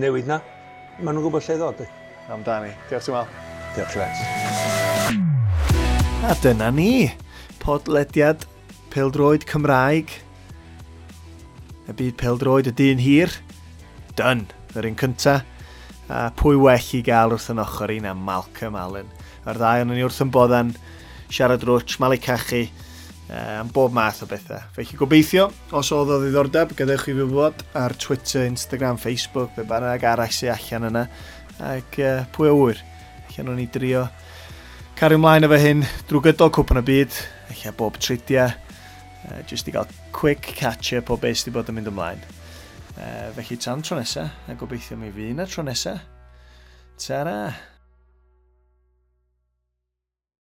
newid na, maen nhw'n gwybod lle i ddod. De. Amdani. Diolch ti'n meddwl. Diolch, Lex. A dyna ni. Podlediad Pêl-droed Cymraeg. Y byd pêl-droed y dyn hir. Done. Yr un cynta. A pwy well i gael wrth yn ochr i na Malcolm Allen. A'r ddau o'n ni wrth yn boddan siarad rwtsh, malu cachu, am bob math o bethau. Felly gobeithio, os oedd o ddiddordeb, gadewch i fi wybod ar Twitter, Instagram, Facebook, be bynnag arall sy'n allan yna. Ac pwy a ŵyr, allan o'n i drio cario ymlaen efo hyn drwy gydol cwpan y byd, ella bob tridiau, Just i gael quick catch-up o beth sydd wedi bod yn mynd ymlaen. Felly tan tro nesa, a gobeithio mi fydd yna tro nesa. Ta-ra!